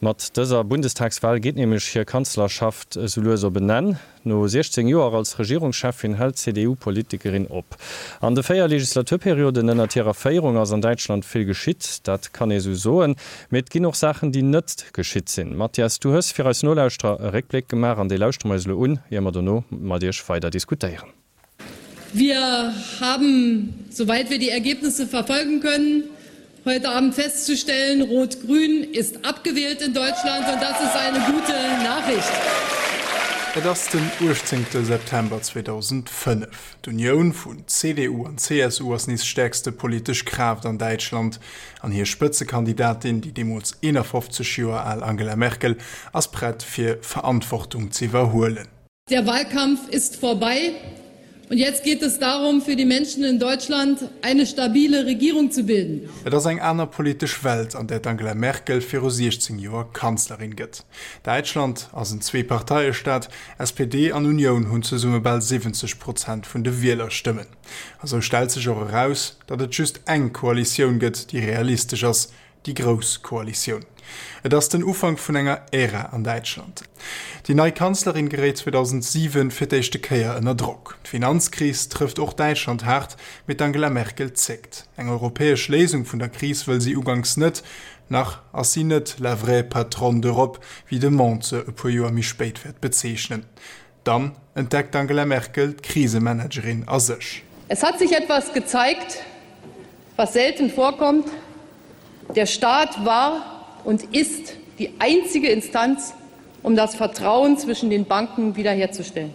Mat dëser Bundestagswahl geet nämlech hir Kanzlerschaft esou lues op en Enn. No 16 Joer als Regierungscheffin hält d'CDU-Politikerin op. An de 4 Legislaturperioden ënnert hirer Féierung ass an Däitschland vill geschitt, dat kann ee sou soen. Mee et ginn och Saachen, déi net geschitt sinn. Mathias, du hues fir eis Nolauschterer e Réckbléck gemaach an dee lauschtere mer eis elo un, ier mer dono mat iech weider diskutéieren. Wir haben, soweit wir die Ergebnisse verfolgen können, heute Abend festzustellen, Rot-Grün ist abgewählt in Deutschland und das ist eine gute Nachricht. Et ass den 18 September 2005. D'Unioun vun CDU an CSU ass nees stäerkste politesch Kraaft an Däitschland an hir Spëtzekandidatin, déi deemools 51 Joer al Angela Merkel, ass prett fir Verantwortung z'iwwerhuelen. Der Wahlkampf ist vorbei und jetzt geht es darum, für die Menschen in Deutschland eine stabile Regierung zu bilden. Et ass eng aner politesch Welt, an där d'Angela Merkel viru 16 Joer Kanzlerin gëtt. Däitschland ass en Zweeparteiestaat, SPD an Unioun hunn zesumme bal 70 Prozent vun de Wielerstëmmen. A sou stellt sech och eraus, datt et just eng Koalitioun gëtt, déi realistesch ass, Déi grouss Koalitioun. Et ass den Ufank vun enger Ära an Däitschland. Déi nei Kanzlerin geréit 2007 fir d'éischte Kéier ënner Drock. D'Finanzkris trëfft och Däitschland haart, mee d'Angela Merkel zéckt. Eng europäesch Léisung vun der Kris wëll si uganks net. Nach ass si net la vraie patronne d'Europe, wéi de Monde se e puer Joer méi spéit wäert bezeechnen. Dann entdeckt d'Angela Merkel d'Krisemanagerin a sech. Es hat sich etwas gezeigt, was selten vorkommt, Der Staat war und ist die einzige Instanz, um das Vertrauen zwischen den Banken wiederherzustellen.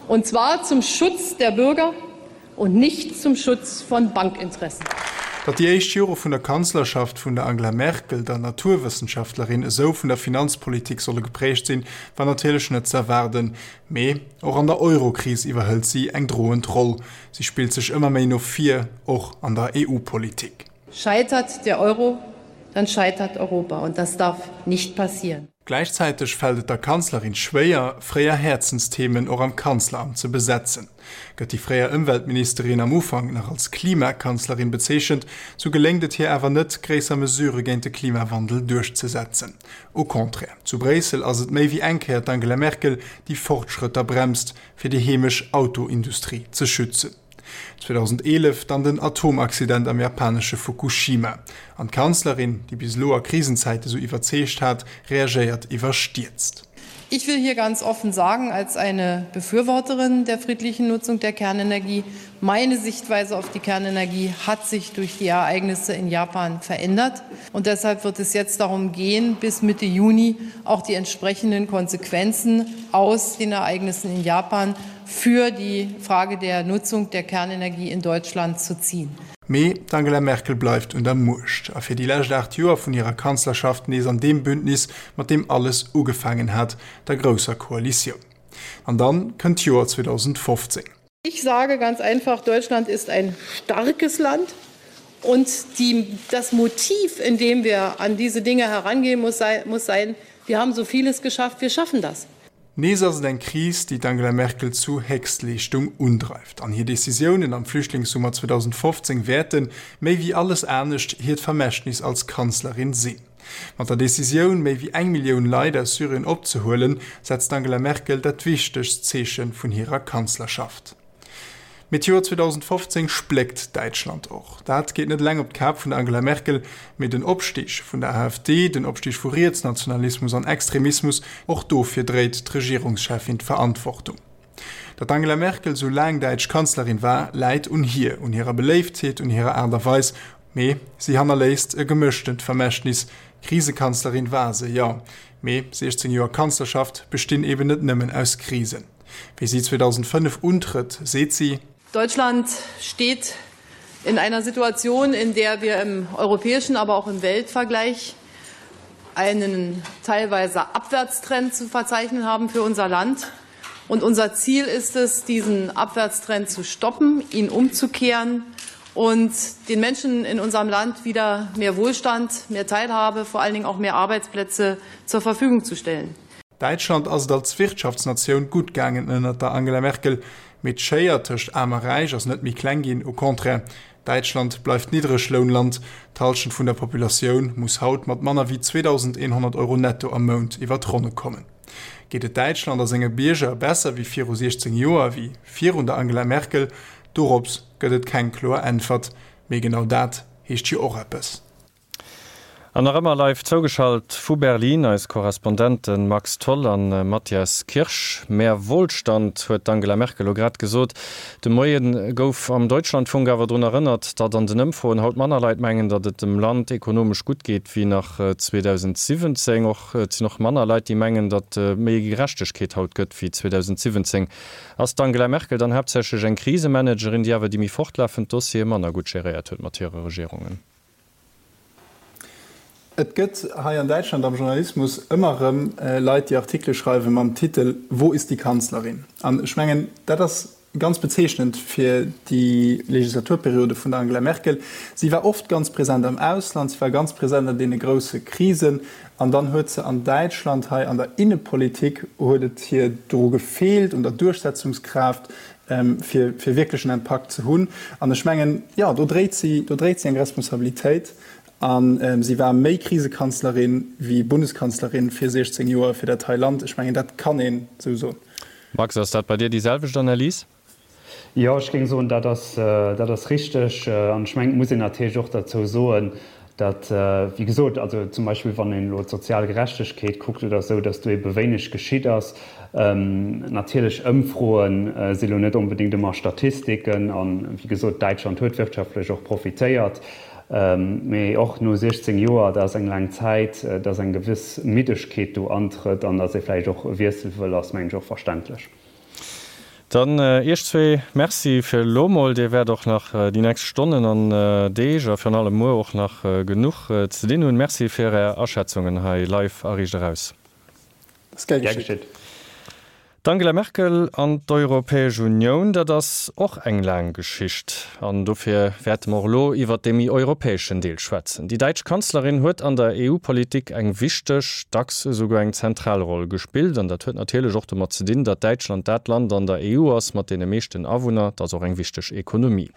Und zwar zum Schutz der Bürger und nicht zum Schutz von Bankinteressen. Datt déi éischt Jore vun der Kanzlerschaft vun der Angela Merkel, der Naturwëssenschaftlerin, esou vun der Finanzpolitik solle geprägt sinn, war natierlech net z'erwaarden. Mee och an der Eurokris iwwerhëlt si eng droend Roll. Si spillt sech ëmmer méi no vir, och an der EU-Politik. Scheitert der Euro, dann scheitert Europa, und das darf nicht passieren. Gläichzäiteg fält et der Kanzlerin schwéier, fréier Häerzensthemen och am Kanzleramt ze besetzen. Gëtt déi fréier Ëmweltministerin am Ufank nach als Klimakanzlerin bezeechent, sou geléngt et hir awer net, gréisser Mesurë géint de Klimawandel duerchzesetzen. Au contraire, zu Bréissel ass et méi wéi eng Kéier d'Angela Merkel, déi Fortschrëtter bremst, fir déi heemesch Autoindustrie ze schützen. 2011 dann den Atomaccident am japanesche Fukushima. An d'Kanzlerin, déi bis elo a Krisenzäite sou iwwerzeegt hat, reagéiert iwwerstierzt. Ich will hier ganz offen sagen, als eine Befürworterin der friedlichen Nutzung der Kernenergie, meine Sichtweise auf die Kernenergie hat sich durch die Ereignisse in Japan verändert. Und deshalb wird es jetzt darum gehen, bis Mitte Juni auch die entsprechenden Konsequenzen aus den Ereignissen in Japan für die Frage der Nutzung der Kernenergie in Deutschland zu ziehen. Mee d'Angela Merkel bleift un der Muecht a fir déi lescht 8 Joer vun hirer Kanzlerschaft nees an deem Bündnis, mat deem alles ugefaangen hat, der grousser Koalitioun. An dann kënnt d'Joer 2015. Ich sage ganz einfach, Deutschland ist ein starkes Land und die, das Motiv, in dem wir an diese Dinge herangehen muss, sei, muss sein, wir haben so vieles geschafft, wir schaffen das. Nees ass et eng Kris, déi d'Angela Merkel zu Héchstleeschtung undreift. An hir Decisiounen am Flüchtlingssummer 2015 wäerten, méi wéi alles anescht, hiert Vermächtnis als Kanzlerin sinn. Mat der Decisioun, méi wéi eng Millioun Leit aus Syrien opzehuelen, setzt d'Angela Merkel dat wichtegst Zeeche vun hirer Kanzlerschaft. Mee d'Joer 2015 spléckt Däitschland och. Dat geet net eleng op d'Kap vun der Angela Merkel, mee den Opstig vun der AfD, den Opstig vu Rietsnationalismus an Extremismus, och dofir dréit d'Regierungscheffin d'Verantwortung. Datt d'Angela Merkel sou laang däitsch Kanzlerin war, läit un hir, un hirer Beléiftheet, un hirer Aart a Weis. Mee si hannerléisst e gemëschtent Vermächtnis. Krisekanzlerin war se, jo, mee 16 Joer Kanzlerschaft bestinn eben net nëmmen aus Krisen. Wéi si 2005 untrëtt, seet si. Deutschland steht in einer Situation, in der wir im europäischen, aber auch im Weltvergleich einen teilweise Abwärtstrend zu verzeichnen haben für unser Land. Und unser Ziel ist es, diesen Abwärtstrend zu stoppen, ihn umzukehren und den Menschen in unserem Land wieder mehr Wohlstand, mehr Teilhabe, vor allen Dingen auch mehr Arbeitsplätze zur Verfügung zu stellen. Däitschland ass et als Wirtschaftsnatioun gutt gaangen ënnert der Angela Merkel, mee d'Schéier tëscht Aarm a Räich ass net méi kleng ginn, au contraire, Däitschland bleift Niddreglounland, d'Hallschent vun der Populatioun muss haut mat manner wéi 2.100 Euro netto am Mount iwwer d'Ronne kommen. Geet et Däitschland a senge Bierger besser wéi viru 16 Joer, wéi virun der Angela Merkel? Dorops gëtt et keng kloer Äntwert, mee genau dat heescht jo och eppes. An nach ëmmer live zougeschalt vu Berlin eis Korrespondenten Max Tholl an Matthias Kirsch. Mehr Wohlstand, huet d'Angela Merkel elo grad gesot. De Moie gouf am Deutschlandfunk awer drun erënnert, datt an den Ëmfroen haut manner Leit mengen, datt et dem Land ekonomesch gutt geet wéi nach 2017. Och et sinn och manner Leit, déi mengen, datt méi Gerechtegkeet haut gëtt wéi 2017. Ass d'Angela Merkel dann haaptsächlech eng Krisemanagerin, déi awer déi méi fortlafend Dossiere manner gutt geréiert huet mat hire Regierungen? Et gëtt hei an Däitschland am Journalismus ëmmer erëm Leit, déi Artikele schreiwe mam Titel Wo ist die Kanzlerin? An ech mengen, dat ass ganz bezeechnend fir déi Legislaturperiode vun der Angela Merkel. Si war oft ganz present am Ausland, si war ganz present an deene grousse Krisen. An dann huet se an Däitschland hei an der Innepolitik huet et hir dru gefeelt, un der Duerchsetzungskraaft, fir fir wierklech en Impakt ze hunn. An ech mengen, jo, do dréit si, do dréit si eng Responsabilitéit. A si war méi Krisekanzlerin wéi Bundeskanzlerin fir 16 Joer fir dat hei Land. Ech mengen, dat kann een esou soen. Max, ass dat bei dir déi selwecht Analys? Jo, ech géing soen, dat ass, dat ass richteg. An ech mengen, et muss een natierlech och derzou soen, datt, wéi gesot, also zum Beispill wann een elo d'sozial Gerechtegkeet kuckt oder esou, datt do ebe wéineg geschitt ass. Natierlech, Ëmfroe si lo net onbedéngt ëmmer Statistiken an, wéi gesot, Däitschland huet wirtschaftlech och profitéiert, mee och no 16 Joer, dat ass eng laang Zäit, datt eng gewëss Middegkeet do antrëtt an datt ee vläicht och e Wiessel wëll, ass, mengen ech, och verständlech. Dann Iech zwee Merci fir elo mol. Dir wäert och nach déi nächst Stonnen an Deeg a virun allem muer och nach genuch ze dinn hunn. Merci fir Är Aschätzungen hei live a Riicht Eraus. Ass gär geschitt. D'Angela Merkel an d'Europäesch Unioun, dat ass och eng laang Geschicht. An dofir wäerte mer och elo iwwert dee méi europäeschen Deel schwätzen. Déi däitsch Kanzlerin huet an der EU-Politik eng wichteg, dacks esouguer eng zentral Roll gespillt. An dat huet natierlech och domat ze dinn, datt Däitschland dat Land an der EU ass mat deene meeschten Awunner. Et ass och eng wichteg Ekonomie.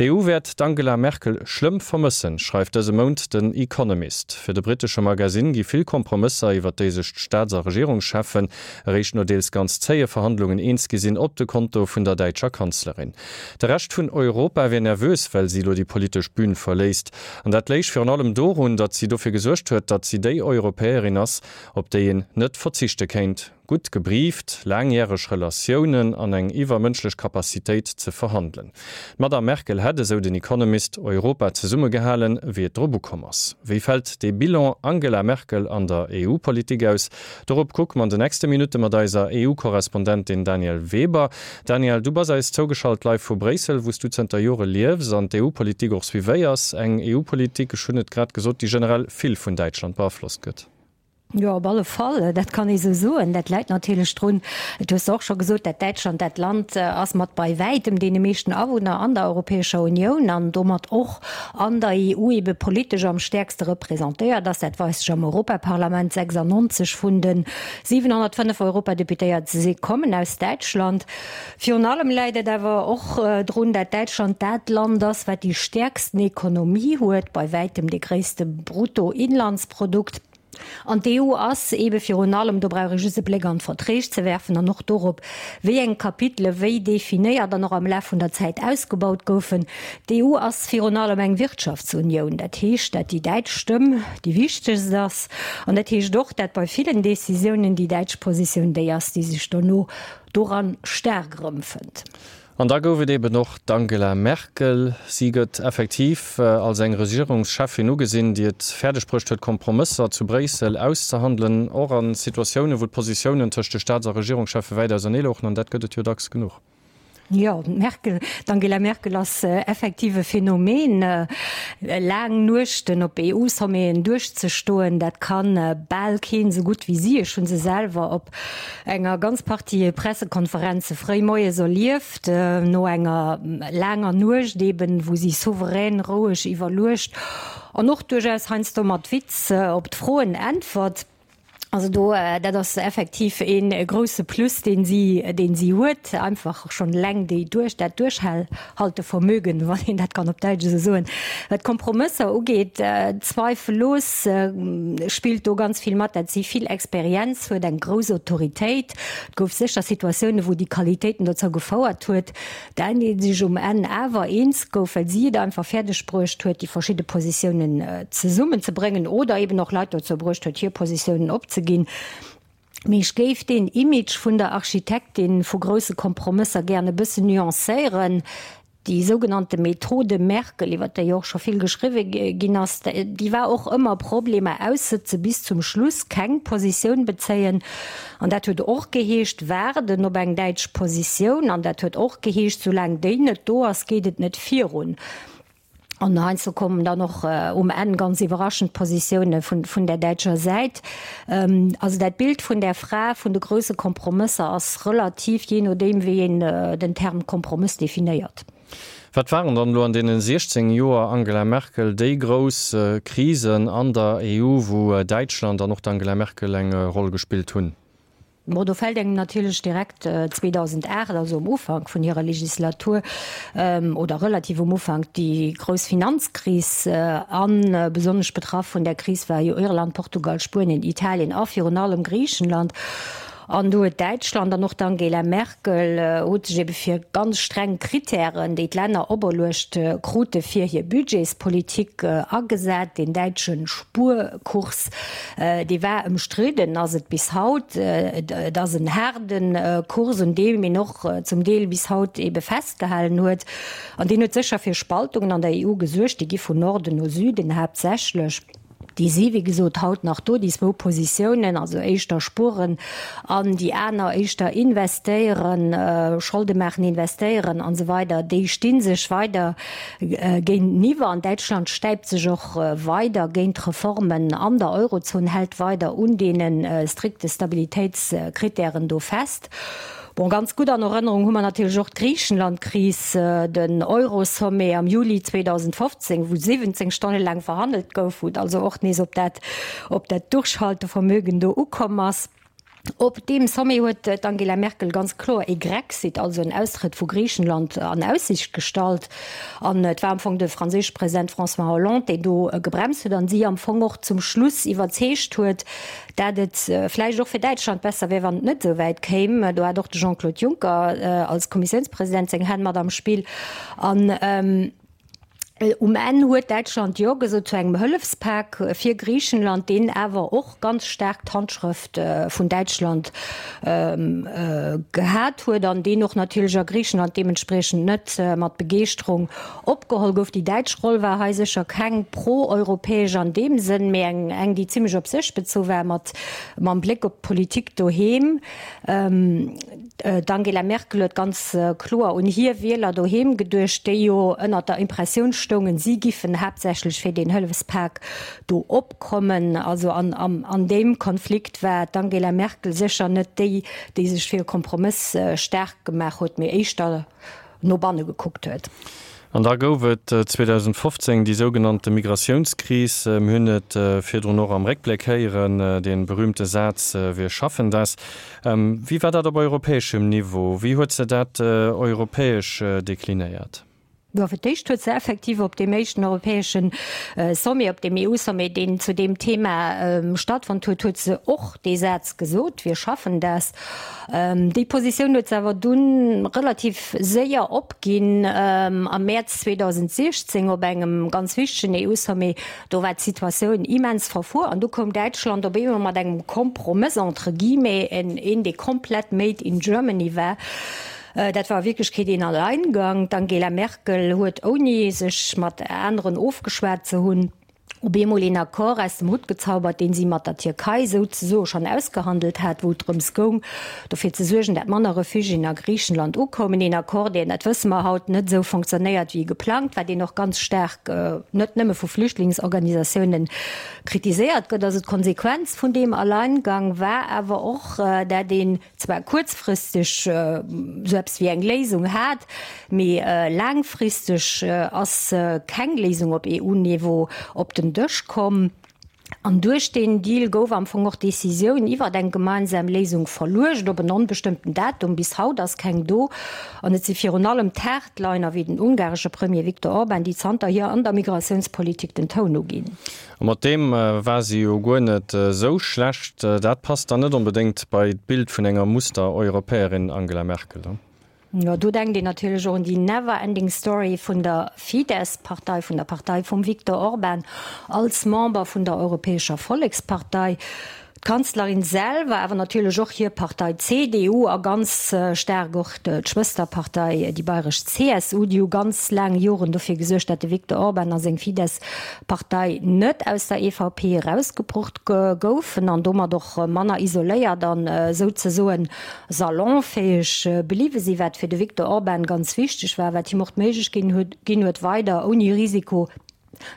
D'EU wäert d'Angela Merkel schlëmm vermëssen, schreift dëse Mount den Economist. Fir de brittesche Magasinn gi vill Kompromësser, iwwer déi sech d'Staats a Regierungscheffen eréischt no deels ganz. ganz zéie Verhandlungen eens gi sinn, op de Konto vun der däitscher Kanzlerin. De Rescht vun Europa wier nervös, well si elo déi politesch Bün verléisst. An dat léich virun allem dorun, datt si dofir gesuergt huet, datt si déi Europäerin ass, op déi een net verzichte kéint. Gutt gebrieft, laangjäreg Relatiounen an eng iwwermënschlech Capacitéit ze verhandelen. D'Madame Merkel hätt, esou den Economist, Europa zesummegehalen, wéi et drop ukomm ass. Wéi fält dee Bilan Angela Merkel an der EU-Politik aus? Dorop kucke mer an de nächste Minutte mat eiser EU-Korrespondentin Danièle Weber. Danièle, du bass eis zougeschalt live vu Bréissel, wou s du zënter Jore liefs an d'EU-Politik och suivéiers. Eng EU-Politik, ech hunn et grad gesot, déi generell vill vun Däitschland beaflosst gëtt. Jo, op alle Fall, dat kann ee sou soen. Dat läit natierlech drun, et hues de och scho gesot, dat Däitschland dat Land ass mat bei wäitem deene meeschten Awunner an der Europäescher Unioun an domat och an der EU ebe politesch am stäerkste representéiert ass. Dat weist sech am Europaparlament, 96 vun de 705 Europadeputéiert si kommen aus Däitschland. Virun allem läit et awer och drun, dat Däitschland dat Land ass, wat déi stäerksten Ekonomie huet, bei wäitem dee gréisste Bruttoinlandsprodukt. An d'EU ass eebe virun allem, do brauch ee just e Bléck an d'Verträg ze werfen an och dorop, wéi eng Kapitele wéi definéiert an och am Laf vun der Zäit ausgebaut goufen, d'EU ass virun allem eng Wirtschaftsunioun. Dat heescht, dat déi däitsch Stëmm déi wichtegst ass. An dat heescht och, dat bei villen Decisiounen déi däitsch Positioun déi ass, déi sech dono doran staark erëmfënnt. An da gouf et eben och d'Angela Merkel. Si gëtt effektiv als eng Regierungscheffin ugesinn, déi et fäerdeg bruecht huet, Kompromësser zu Bréissel auszehandelen, och a Situatiounen, wou d'Positiounen tëscht de Staats a Regierungscheffe wäit ausernee louchen. An dat gëtt et jo dacks genuch. Jo, d'Merkel, d'Angela Merkel ass effektiv e Phänomen. Laang Nuechten op EU-Sommeten duerchzestoen, dat ka bal keen esou gutt wéi si. Ech hu se selwer op enger ganz Partie Pressekonferenze fréi moies erlieft, no enger laanger Nuecht eben, wou si souverän, roueg, iwwerluecht an och duerchaus heiansdo mat Witz op d'Froen äntwert. Also do, dat ass effektiv ee grousse Plus, deen si, deen si huet, einfach schonn eleng déi duerch, dat Duerchhaltevermögen, wann een dat kann op Däitsch esou soen. Wat d'Kompromësser ugeet, zweifellos spillt do ganz vill mat, dat si vill Experienz huet, eng grouss Autoritéit. Et gouf sécher Situatiounen, wou déi Qualitéiten dozou gefouert huet, dat ee sech um Enn awer eens gouf, well si et einfach fäerdeg bruecht huet, déi verschidde Positiounen zesummenzebréngen oder eben och Leit dozou bruecht huet, hir Positiounen opzeginn. Mee ech géif deen Image vun der Architektin vu grousse Kompromësser gären e bëssen nuancéieren. Déi sougenannte Methode Merkel, iwwer déi och scho vill geschriwwe ginn ass, déi war och ëmmer Problemer aussëtze bis zum Schluss, keng Positioun bezéien. An dat huet och geheescht, waarden op eng däitsch Positioun. An dat huet och geheescht, soulaang déi net do ass, geet et net virun. An heiansdo kommen dann och um Enn ganz iwwerraschend Positioune vun der däitscher Säit. Also dat Bild vun där Fra vun de grousse Kompromësser ass relativ, jee nodeem wéi een den Term Kompromëss definéiert. Wat waren dann elo an deene 16 Joer Angela Merkel déi grouss Krisen an der EU, wou Däitschland an och d'Angela Merkel eng Roll gespillt hunn? Bon, do fält engem natierlech direkt 2008, also um Ufank vun hirer Legislatur, oder relativ um Ufank, déi grouss Finanzkris an. Besonnesch betraff vun där Kris war jo Irland, Portugal, Spuenien, Italien a virun allem Griichenland. An do huet Däitschland an och d'Angela Merkel huet sech ebe fir ganz streng Kritären, déi d'Länner operluecht krute fir hir Budgetspolitik agesat. Deen däitsche Spuerkurs, dee war ëmstridden, ass et bis haut. Et ass en haarde Kurs, un deem een och zum Deel bis haut ebe festgehalen huet. An deen huet sécher fir Spaltungen an der EU gesuergt. Déi gi vun Norden no Süden haaptsächlech. Déi si wéi gesot haut nach do, déi zwou Positiounen, also éischter spueren an déi aner éischter investéieren, Scholde maachen, investéieren an esou weider, déi sti sech weider géinteniwwer. An Däitschland stäipt sech och weider géint d'Reformen an der Eurozon, hält weider un deene strikte Stabilitéitskritären do fest. Bon, ganz gutt an Erënnerung hu mer natierlech och d'Griichenland-Kris, den Euro-Sommet am Juli 2015, wou 17 Stonne laang verhandelt gouf, wou et also och nees op dat, op dat Durchhaltevermögen do ukomm ass. Op deem Sommet huet d'Angela Merkel ganz kloer ee Grexit, also en Austrëtt vu Griichenland, an Aussiicht gestallt. An et war am Fong de franséische President François Hollande, deen do gebremst huet an si am Fong och zum Schluss iwwerzeegt huet, dat et vläicht och fir Däitschland besser wär, wann et net esou wäit kéim. Do hat och de Jean-Claude Juncker als Kommissiounspresident seng Hänn mat am Spill. An um Enn huet Däitschland Jo gesot zu engem Hëllefspak fir Griichenland, deen awer och ganz staark d'Handschrëft vun Däitschland gehat huet an deen och natierlech a Griichenland deementspriechend net mat Begeeschterung opgeholl gouf. Déi däitsch Roll war hei sécher keng pro-europäesch an deem Sënn, mee eng, eng déi zimmlech op sech bezu war, mat mam Bléck op d'Politik doheem. D'Angela Merkel huet ganz kloer un hir Wieler doheem geduecht, déi jo ënnert der Impressioun stoungen, si giffen haaptsächlech fir deen Hëllefspak do opkommen. Also an an deem Konflikt war d'Angela Merkel sécher net déi, déi sech fir e Kompromëss staark gemaach huet, mee éischter no banne gekuckt huet. An da gouf et 2015 déi sougenannte Migratiounskris. Mir hunn et virdrun och am Réckbléck héieren, dee berühmte Saz Wir schaffen das. Wéi war dat op europäeschem Niveau? Wéi huet se dat europäesch deklinéiert? Jo, fir d'éischt huet se effektiv op deem éischten europäesche Sommet, op deem EU-Sommet, deen zu deem Thema stattfonnt huet, huet se och dee Saz gesot, Wir schaffen das. Déi Positioun huet se awer dunn relativ séier opginn am Mäerz 2016 op engem ganz wichtegen EU-Sommet. Do war d'Situatioun immens verfuer an du koum Däitschland op eemol mat engem Kompromëss entre guillemets, een dee komplett made in Germany war. Dat war a Wierklechkeet een Alleingang. D'Angela Merkel huet, ouni sech mat aneren ofgeschwat ze hunn, op eemol een Accord aus dem Hutt gezaubert, deen si mat der Tierkei souzesoe schonn ausgehandelt hat, wou et drëms goung, dofir ze suergen, dat manner Refugiéen a Griichenland ukoumen. Een Accord, deen, dat wësse mer haut, net esou fonctionnéiert wéi geplangt war, deen och ganz staark net nëmme vu Flüchtlingsorganisatiounen kritiséiert gëtt. Also d'Konsequenz vun deem Alleingang war awer och, dat een zwar kuerzfristeg esou eppes wéi eng Léisung hat, mee laangfristeg ass keng Léisung op EU-Niveau op den Dësch komm. An duerch deen Deal gouf am Fong och d'Decisioun iwwert eng gemeinsam Léisung verluecht op en onbestëmmten Datum. Bis haut ass keng do. An et si virun allem d'Hardliner wéi den ungaresche Premier Viktor Orban, déi zanterhier an der Migratiounspolitik den Toun uginn. A mat deem war si jo guer net esou schlecht. Dat passt dann net onbedéngt bei d'Bild vun enger Muster-Europäerin Angela Merkel, ne? Jo, do denkt een natierlech och un déi never ending story vun der Fidesz-Partei, vun der Partei vum Viktor Orban als Member vun der Europäescher Vollekspartei. D'Kanzlerin selwer, awer natierlech och hir Partei CDU a ganz staark och d'Schwësterpartei, déi bayresch CSU, déi hu ganz laang Joren dofir gesuergt, dat de Viktor Orban a seng Fidesz-Partei net aus der EVP erausgebrucht goufen an domat och manner isoléiert an souzesoen salonfäeg bliwwe sinn, wat fir de Viktor Orban ganz wichteg war, wat him och d'Méiglechkeet ginn huet, weider ouni Risiko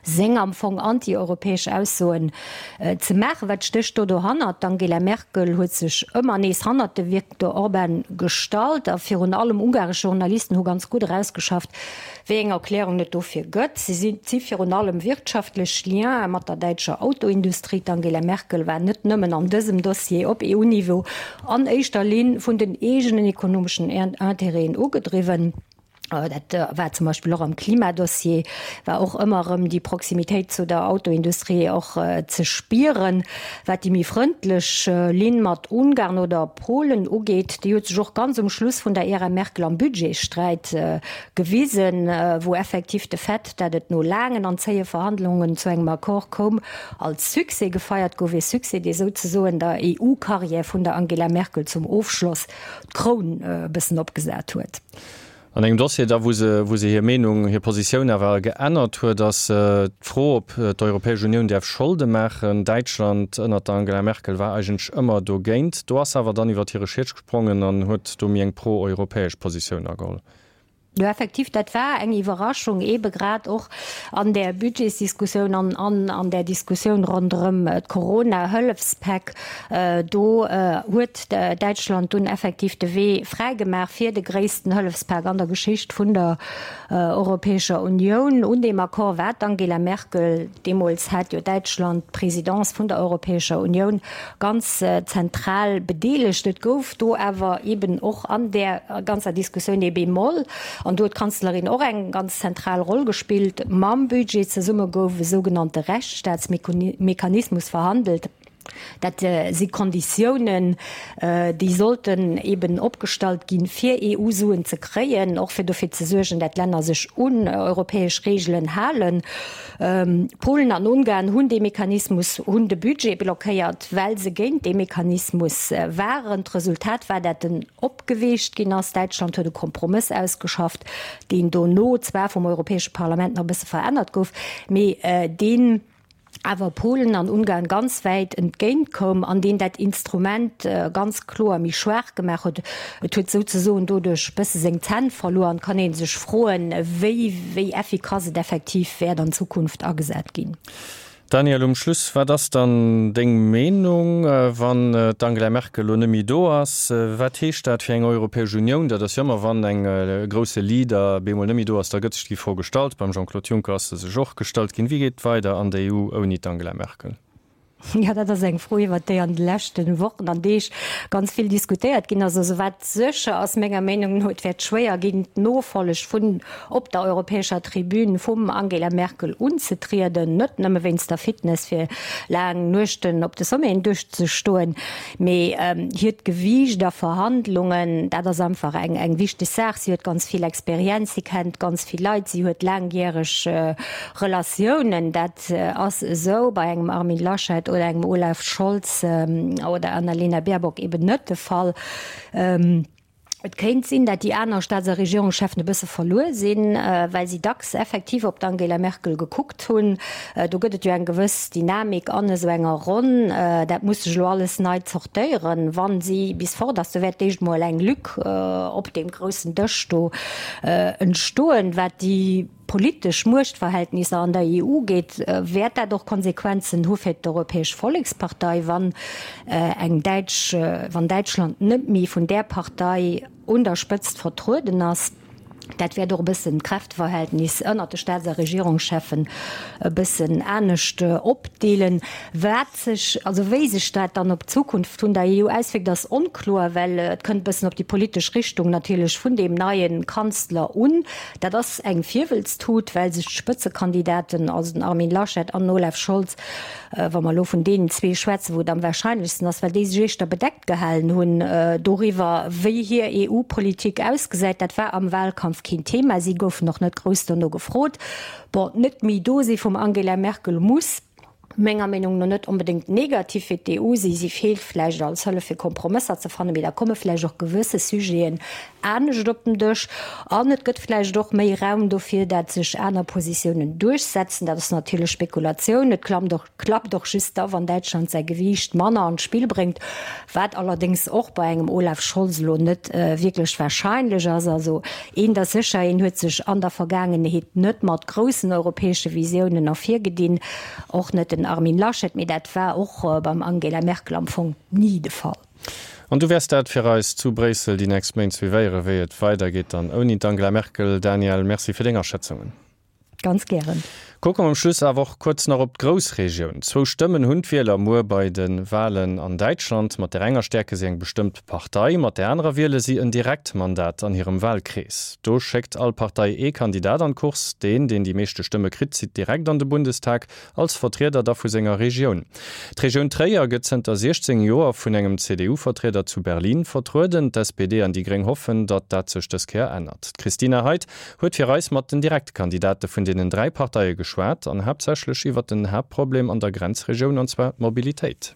seng am Fong anti-europäesch Aussoen ze maachen. Wat stécht do dohannert? D'Angela Merkel huet sech ëmmer nees hannert de Viktor Orban gestallt a virun allem ungaresch Journalisten hu ganz gutt erausgeschafft, wéi eng Erklärung et dofir gëtt. Se si si virun allem wirtschaftlech Liene mat der däitscher Autoindustrie. D'Angela Merkel war net nëmmen an dësem Dossier op EU-Niveau an éischter Linn vun den eegenen ekonomeschen Intérêten ugedriwwen. Dat war zum Beispill och am Klimadossier, war och ëmmer erëm déi Proximitéit zu der Autoindustrie och ze spieren. Wat déi méi frëndlech Linn mat Ungarn oder Polen ugeet, déi huet sech och ganz um Schluss vun der Ära Merkel am Budgetsträit gewisen, wou effektiv de Fait, dat et no laangen an zéie Verhandlungen zu engem Accord koum, als Succès gefeiert gouf, ee Succès, dee souzesoen der EU-Karriär vun der Angela Merkel zum Ofschloss d'Kroun e bëssen opgesat huet. An engem Dossier da, wou se, wou se hir Meenung, hir Positioun awer geännert huet, ass d'Fro, ob d'Europäesch Unioun däerf Scholde maachen. Däitschland ënnert der Angela Merkel war eigentlech ëmmer dogéint. Do ass se awer dann iwwert hire Schiet gesprongen an huet do méi eng pro-europäesch Positioun ageholl. Jo, effektiv, dat war eng Iwwerraschung, eebe grad och an där Budgetsdiskussioun an an an där Diskussioun ronderëm d'Corona-Hëllefspäck. Do huet Däitschland dunn effektiv de Wee fräigemaach fir de gréissten Hëllefspak an der Geschicht vun der Europäescher Unioun. Un deem Accord war d'Angela Merkel, deemools hat jo Däitschland d'Presidence vun der Europäescher Unioun, ganz zentral bedeelegt. Et gouf do awer eben och an där ganzer Diskussioun ee Bémol, an do huet d'Kanzlerin och eng ganz zentral Roll gespillt. Mam Budget zesumme gouf e sougenannte Rechtsstaatsmechanismus verhandelt. Dat si Konditiounen, déi sollten eben opgestallt ginn, fir EU-Suen ze kréien, och fir dofir ze suergen, dat d'Länner sech un europäesch Reegelen halen. Polen an Ungarn hunn dee Mechanismus, hunn de Budget blockéiert, well se géint dee Mechanismus waren. D'Resultat war, dat en opgeweecht ginn ass. Däitschland huet e Kompromëss ausgeschafft, deen dono zwar vum Europäesche Parlament nach e bësse verännert gouf, mee deen, awer Polen an Ungarn ganz wäit entgéint koum an deen dat Instrument ganz kloer méi schwaach gemaach huet. Et huet souzesoen doduerch bësse seng Zänn verluer an et kann ee sech froen, wéi wéi effikass et effektiv wäert an Zukunft agesat ginn. Daniel, um Schluss, wat ass dann deng Meenung, wann d'Angela Merkel elo net méi do ass? Wat heescht dat fir eng Europäesch Unioun? Dat ass jo ëmmer, wann eng grousse Leader bemol net méi do ass, da gëtt sech déi Fro gestallt. Beim Jean-Claude Juncker ass se sech och gestallt ginn. Wéi geet et weider an der EU ouni d'Angela Merkel? Jo, dat ass eng Fro, iwwert déi an de leschte Wochen an Deeg ganz vill diskutéiert ginn ass. Also wat sécher ass, menger Meenung no, et wäert schwéier ginn, d'Nofolleg vun op der europäescher Tribün vum Angela Merkel unzetrieden, net nëmme wéinst der Fitness fir laang Nuechten op de Sommeten duerchzestoen, Mee hiert Gewiicht a Verhandlungen, dat ass einfach eng eng wichteg Saach. Si huet ganz vill Experienz, si kennt ganz vill Leit, si huet laangjäreg Relatiounen. Dat ass esou bei engem Armin Laschet oder engem Olaf Scholz oder Annalena Baerbock eben net de Fall. Et kéint sinn, dat déi aner Staats a Regierungscheffen e bësse verluer sinn, well si dacks effektiv op d'Angela Merkel gekuckt hunn. Do gëtt et jo eng gewëss Dynamik an esou enger Ronn. Dat muss sech elo alles nei zortéieren, wa si bis fort ass. Do wäert d'éischt mol eng Lück op deem groussen Dësch do entstoen, wat déi. politesch Muechtverhältnisser an der EU geet, wäert dat och Konsequenzen hu fir d'Europäesch Vollekspartei, wann eng däitsch, wann Däitschland net méi vun där Partei un der Spëtzt vertrueden ass. Dat wäert och e bëssen d'Kräfteverhältnis ënnert de Staats a Regierungscheffen e bëssen anescht opdeelen. Wat sech, also wéi sech dat dann op d'Zukunft vun der EU auswierkt, ass onkloer, well et kënnt e bëssen op déi politesch Richtung natierlech vun deem neie Kanzler un. Dat ass eng Virwëlztut, well sech d'Spëtzekandidaten, also den Armin Laschet an den Olaf Scholz, wa mer elo vun deenen zwee schwätzen, wou et am wahrscheinlechsten ass, well déi sech éischter bedeckt gehalen hunn doriwwer, wéi hir EU-Politik ausgesäit. Dat war am Wahlkampf keen Thema. Si goufen och net grouss dono gefrot. Bon, d'Net méi do si vum Angela Merkel muss. menger Meenung no net onbedéngt negativ fir d'EU si. Si feelt vläicht als Hëllef fir Kompromësser ze fannen, mee da komme vläicht och gewësse Sujeten anescht op den Dësch an et gëtt vläicht och méi Raum dofir, dat sech aner Positiounen duerchsetzen. Dat ass natierlech Spekulatioun. Et klammt och, klappt och just da wann Däitschland säi Gewiicht manner an d'Spill bréngt, wat allerdéngs och bei engem Olaf Scholz elo net wierklech wahrscheinlech ass. Also eent ass sécher, Hien huet sech an der Vergaangenheet net mat groussen europäesche Visiounen ervirgedinn. Och net den Armin Laschet, mee dat war och beim Angela Merkel am Fong ni de Fall. An du wäers dat fir eis zu Bréissel déi nächst Méint suivéieren, wéi et weidergeet dann ouni d'Angela Merkel. Daniel, Merci fir deng Aschätzungen. Ganz gären. Kucke mer um Schluss awer och kuerz nach op d'Groussregioun. Zwou Stëmmen hunn d'Wieler muer bei de Walen an Däitschland. Mat där enger stäerke si eng bestëmmt Partei, mat där anerer wiele si en Direktmandat an hirem Walkrees. Do schéckt all Partei ee Kandidat an d'Course. Deen, deen déi meeschte Stëmme kritt, zitt direkt an de Bundestag, als Vertrieder da vu senger Regioun. D'Regioun Tréier gëtt zënter 16 Joer vun engem CDU-Vertrieder zu Berlin vertrueden. D'SPD an déi Gréng hoffen, datt dat sech dës Kéier ännert. D'Christina Heidt huet fir eis mat den Direktkandidate vun deenen 3 Parteie geschwat an haaptsächlech iwwer den Haaptproblem an der Grenzregioun, an zwar d'Mobilitéit.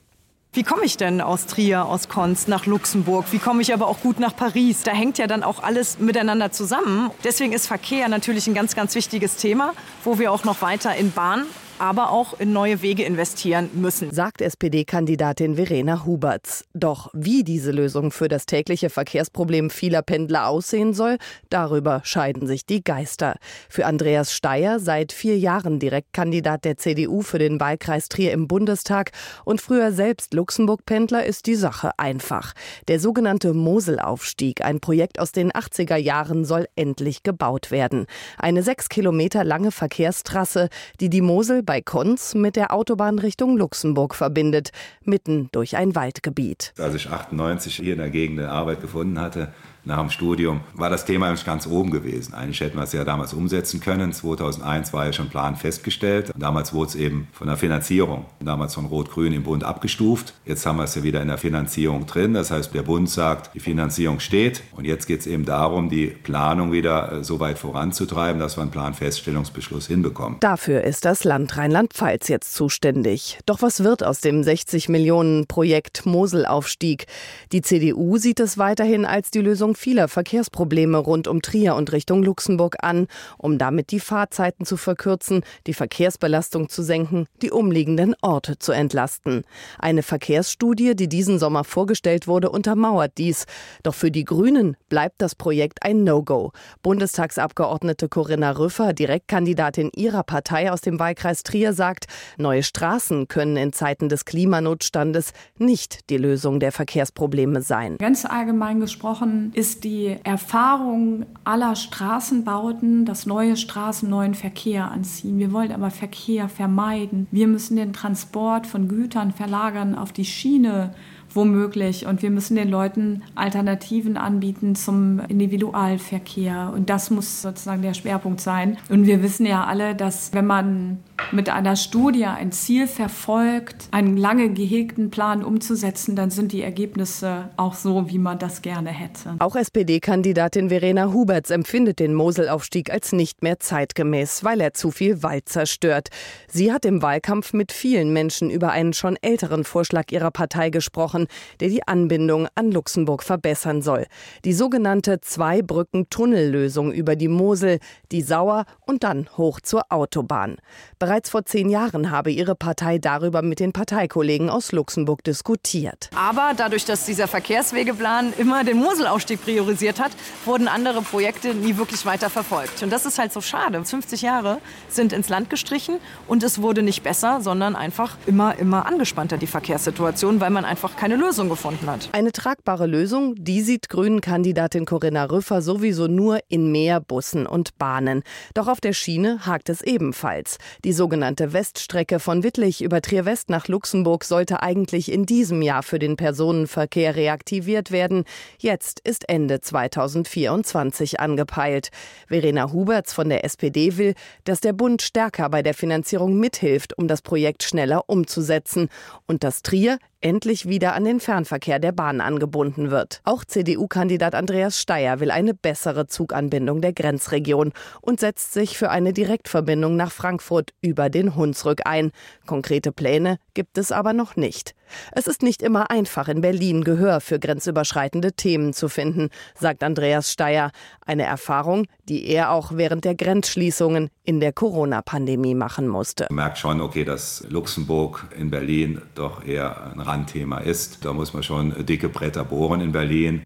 Wie komme ich denn aus Trier, aus Konz nach Luxemburg? Wie komme ich aber auch gut nach Paris? Da hängt ja dann auch alles miteinander zusammen. Deswegen ist Verkehr natürlich ein ganz, ganz wichtiges Thema, wo wir auch noch weiter in Bahn. aber auch in neue Wege investieren müssen. Sagt SPD-Kandidatin Verena Hubertz. Doch wie diese Lösung für das tägliche Verkehrsproblem vieler Pendler aussehen soll, darüber scheiden sich die Geister. Für Andreas Steyer, seit vier Jahren Direktkandidat der CDU für den Wahlkreis Trier im Bundestag und früher selbst Luxemburg-Pendler, ist die Sache einfach. Der sogenannte Moselaufstieg, ein Projekt aus den 80er Jahren, soll endlich gebaut werden. Eine sechs Kilometer lange Verkehrstrasse, die die Mosel bei Konz mit der Autobahn Richtung Luxemburg verbindet, mitten durch ein Waldgebiet. Als ich 98 hier in der Gegend eine Arbeit gefunden hatte, nach dem Studium, war das Thema eigentlich ganz oben gewesen. Eigentlich hätten wir es ja damals umsetzen können. 2001 war ja schon Plan festgestellt. Damals wurde es eben von der Finanzierung, damals von Rot-Grün im Bund abgestuft. Jetzt haben wir es ja wieder in der Finanzierung drin. Das heißt, der Bund sagt, die Finanzierung steht. Und jetzt geht es eben darum, die Planung wieder äh, so weit voranzutreiben, dass wir einen Planfeststellungsbeschluss hinbekommen. Dafür ist das Land Rheinland-Pfalz jetzt zuständig. Doch was wird aus dem 60 Millionen Projekt Moselaufstieg? Die CDU sieht es weiterhin als die Lösung vieler Verkehrsprobleme rund um Trier und Richtung Luxemburg an, um damit die Fahrzeiten zu verkürzen, die Verkehrsbelastung zu senken, die umliegenden Orte zu entlasten. Eine Verkehrsstudie, die diesen Sommer vorgestellt wurde, untermauert dies. Doch für die Grünen bleibt das Projekt ein No-Go. Bundestagsabgeordnete Corinna Rüffer, Direktkandidatin ihrer Partei aus dem Wahlkreis Trier, sagt, neue Straßen können in Zeiten des Klimanotstandes nicht die Lösung der Verkehrsprobleme sein. Ganz allgemein gesprochen ist die Erfahrung aller Straßenbauten, dass neue Straßen neuen Verkehr anziehen. Wir wollen aber Verkehr vermeiden. Wir müssen den Transport von Gütern verlagern auf die Schiene womöglich. Und wir müssen den Leuten Alternativen anbieten zum Individualverkehr. Und das muss sozusagen der Schwerpunkt sein. Und wir wissen ja alle, dass wenn man mit einer Studie ein Ziel verfolgt, einen lange gehegten Plan umzusetzen, dann sind die Ergebnisse auch so, wie man das gerne hätte. Auch SPD-Kandidatin Verena Huberts empfindet den Moselaufstieg als nicht mehr zeitgemäß, weil er zu viel Wald zerstört. Sie hat im Wahlkampf mit vielen Menschen über einen schon älteren Vorschlag ihrer Partei gesprochen, der die Anbindung an Luxemburg verbessern soll. Die sogenannte Zwei-Brücken-Tunnellösung über die Mosel, die Sauer und dann hoch zur Autobahn. Bereits vor zehn Jahren habe ihre Partei darüber mit den Parteikollegen aus Luxemburg diskutiert. Aber dadurch, dass dieser Verkehrswegeplan immer den Moselaufstieg priorisiert hat, wurden andere Projekte nie wirklich weiter verfolgt. Und das ist halt so schade. 50 Jahre sind ins Land gestrichen und es wurde nicht besser, sondern einfach immer, immer angespannter die Verkehrssituation, weil man einfach keine Lösung gefunden hat. Eine tragbare Lösung, die sieht Grünen-Kandidatin Corinna Rüffer sowieso nur in mehr Bussen und Bahnen. Doch auf der Schiene hakt es ebenfalls. Die sogenannte Weststrecke von Wittlich über Trier-West nach Luxemburg sollte eigentlich in diesem Jahr für den Personenverkehr reaktiviert werden. Jetzt ist Ende 2024 angepeilt. Verena Huberts von der SPD will, dass der Bund stärker bei der Finanzierung mithilft, um das Projekt schneller umzusetzen und dass Trier endlich wieder an den Fernverkehr der Bahn angebunden wird. Auch CDU-Kandidat Andreas Steyer will eine bessere Zuganbindung der Grenzregion und setzt sich für eine Direktverbindung nach Frankfurt über den Hunsrück ein. Konkrete Pläne gibt es aber noch nicht. Es ist nicht immer einfach, in Berlin Gehör für grenzüberschreitende Themen zu finden, sagt Andreas Steyer. Eine Erfahrung, die er auch während der Grenzschließungen in der Corona-Pandemie machen musste. Man merkt schon, okay, dass Luxemburg in Berlin doch eher ein Randthema ist. Da muss man schon dicke Bretter bohren in Berlin.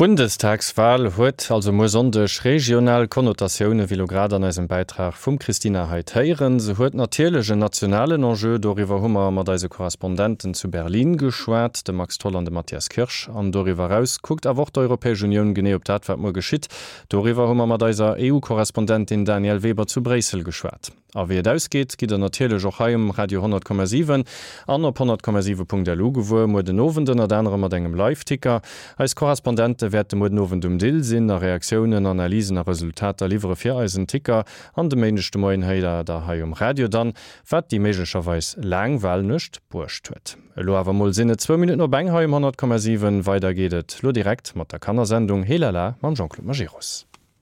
D'Bundestagswal huet also muer Sonndeg regional Konnotatioune, wéi lo grad an eisem Bäitrag vum Christina Heid héieren. Se huet natierlech en nationalen Enjeu, doriwwer hu mer mat eise Korrespondenten zu Berlin geschwat, dem Max Tholl an dem Matthias Kirsch. An doriwwer eraus kuckt awer och d'Europäesch Unioun genee op dat, wat muer geschitt. Doriwwer hu mer mat eiser EU-Korrespondentin Danièle Weber zu Bréissel geschwat. A wéi et ausgeet, gitt der natierlech och hei um Radio 100,7 an op 100,7.lu gewuer. Muer den Owend ënnert anerem mat engem Live-Ticker. Eis Korrespondente wäerte muer den Owend um Dill sinn a Reaktiounen, Analysen a Resultater liwwere fir eisen Ticker. An de Méindeg de Moien héiert der hei um Radio dann, wat déi méiglecherweis laang Walnuecht bruecht huet. Elo awer mol sinn et zwou Minutten op eng hei um 100,7. Weider geet et lo direkt mat der Kannersendung Heelala mam Jean-Claude Majerus.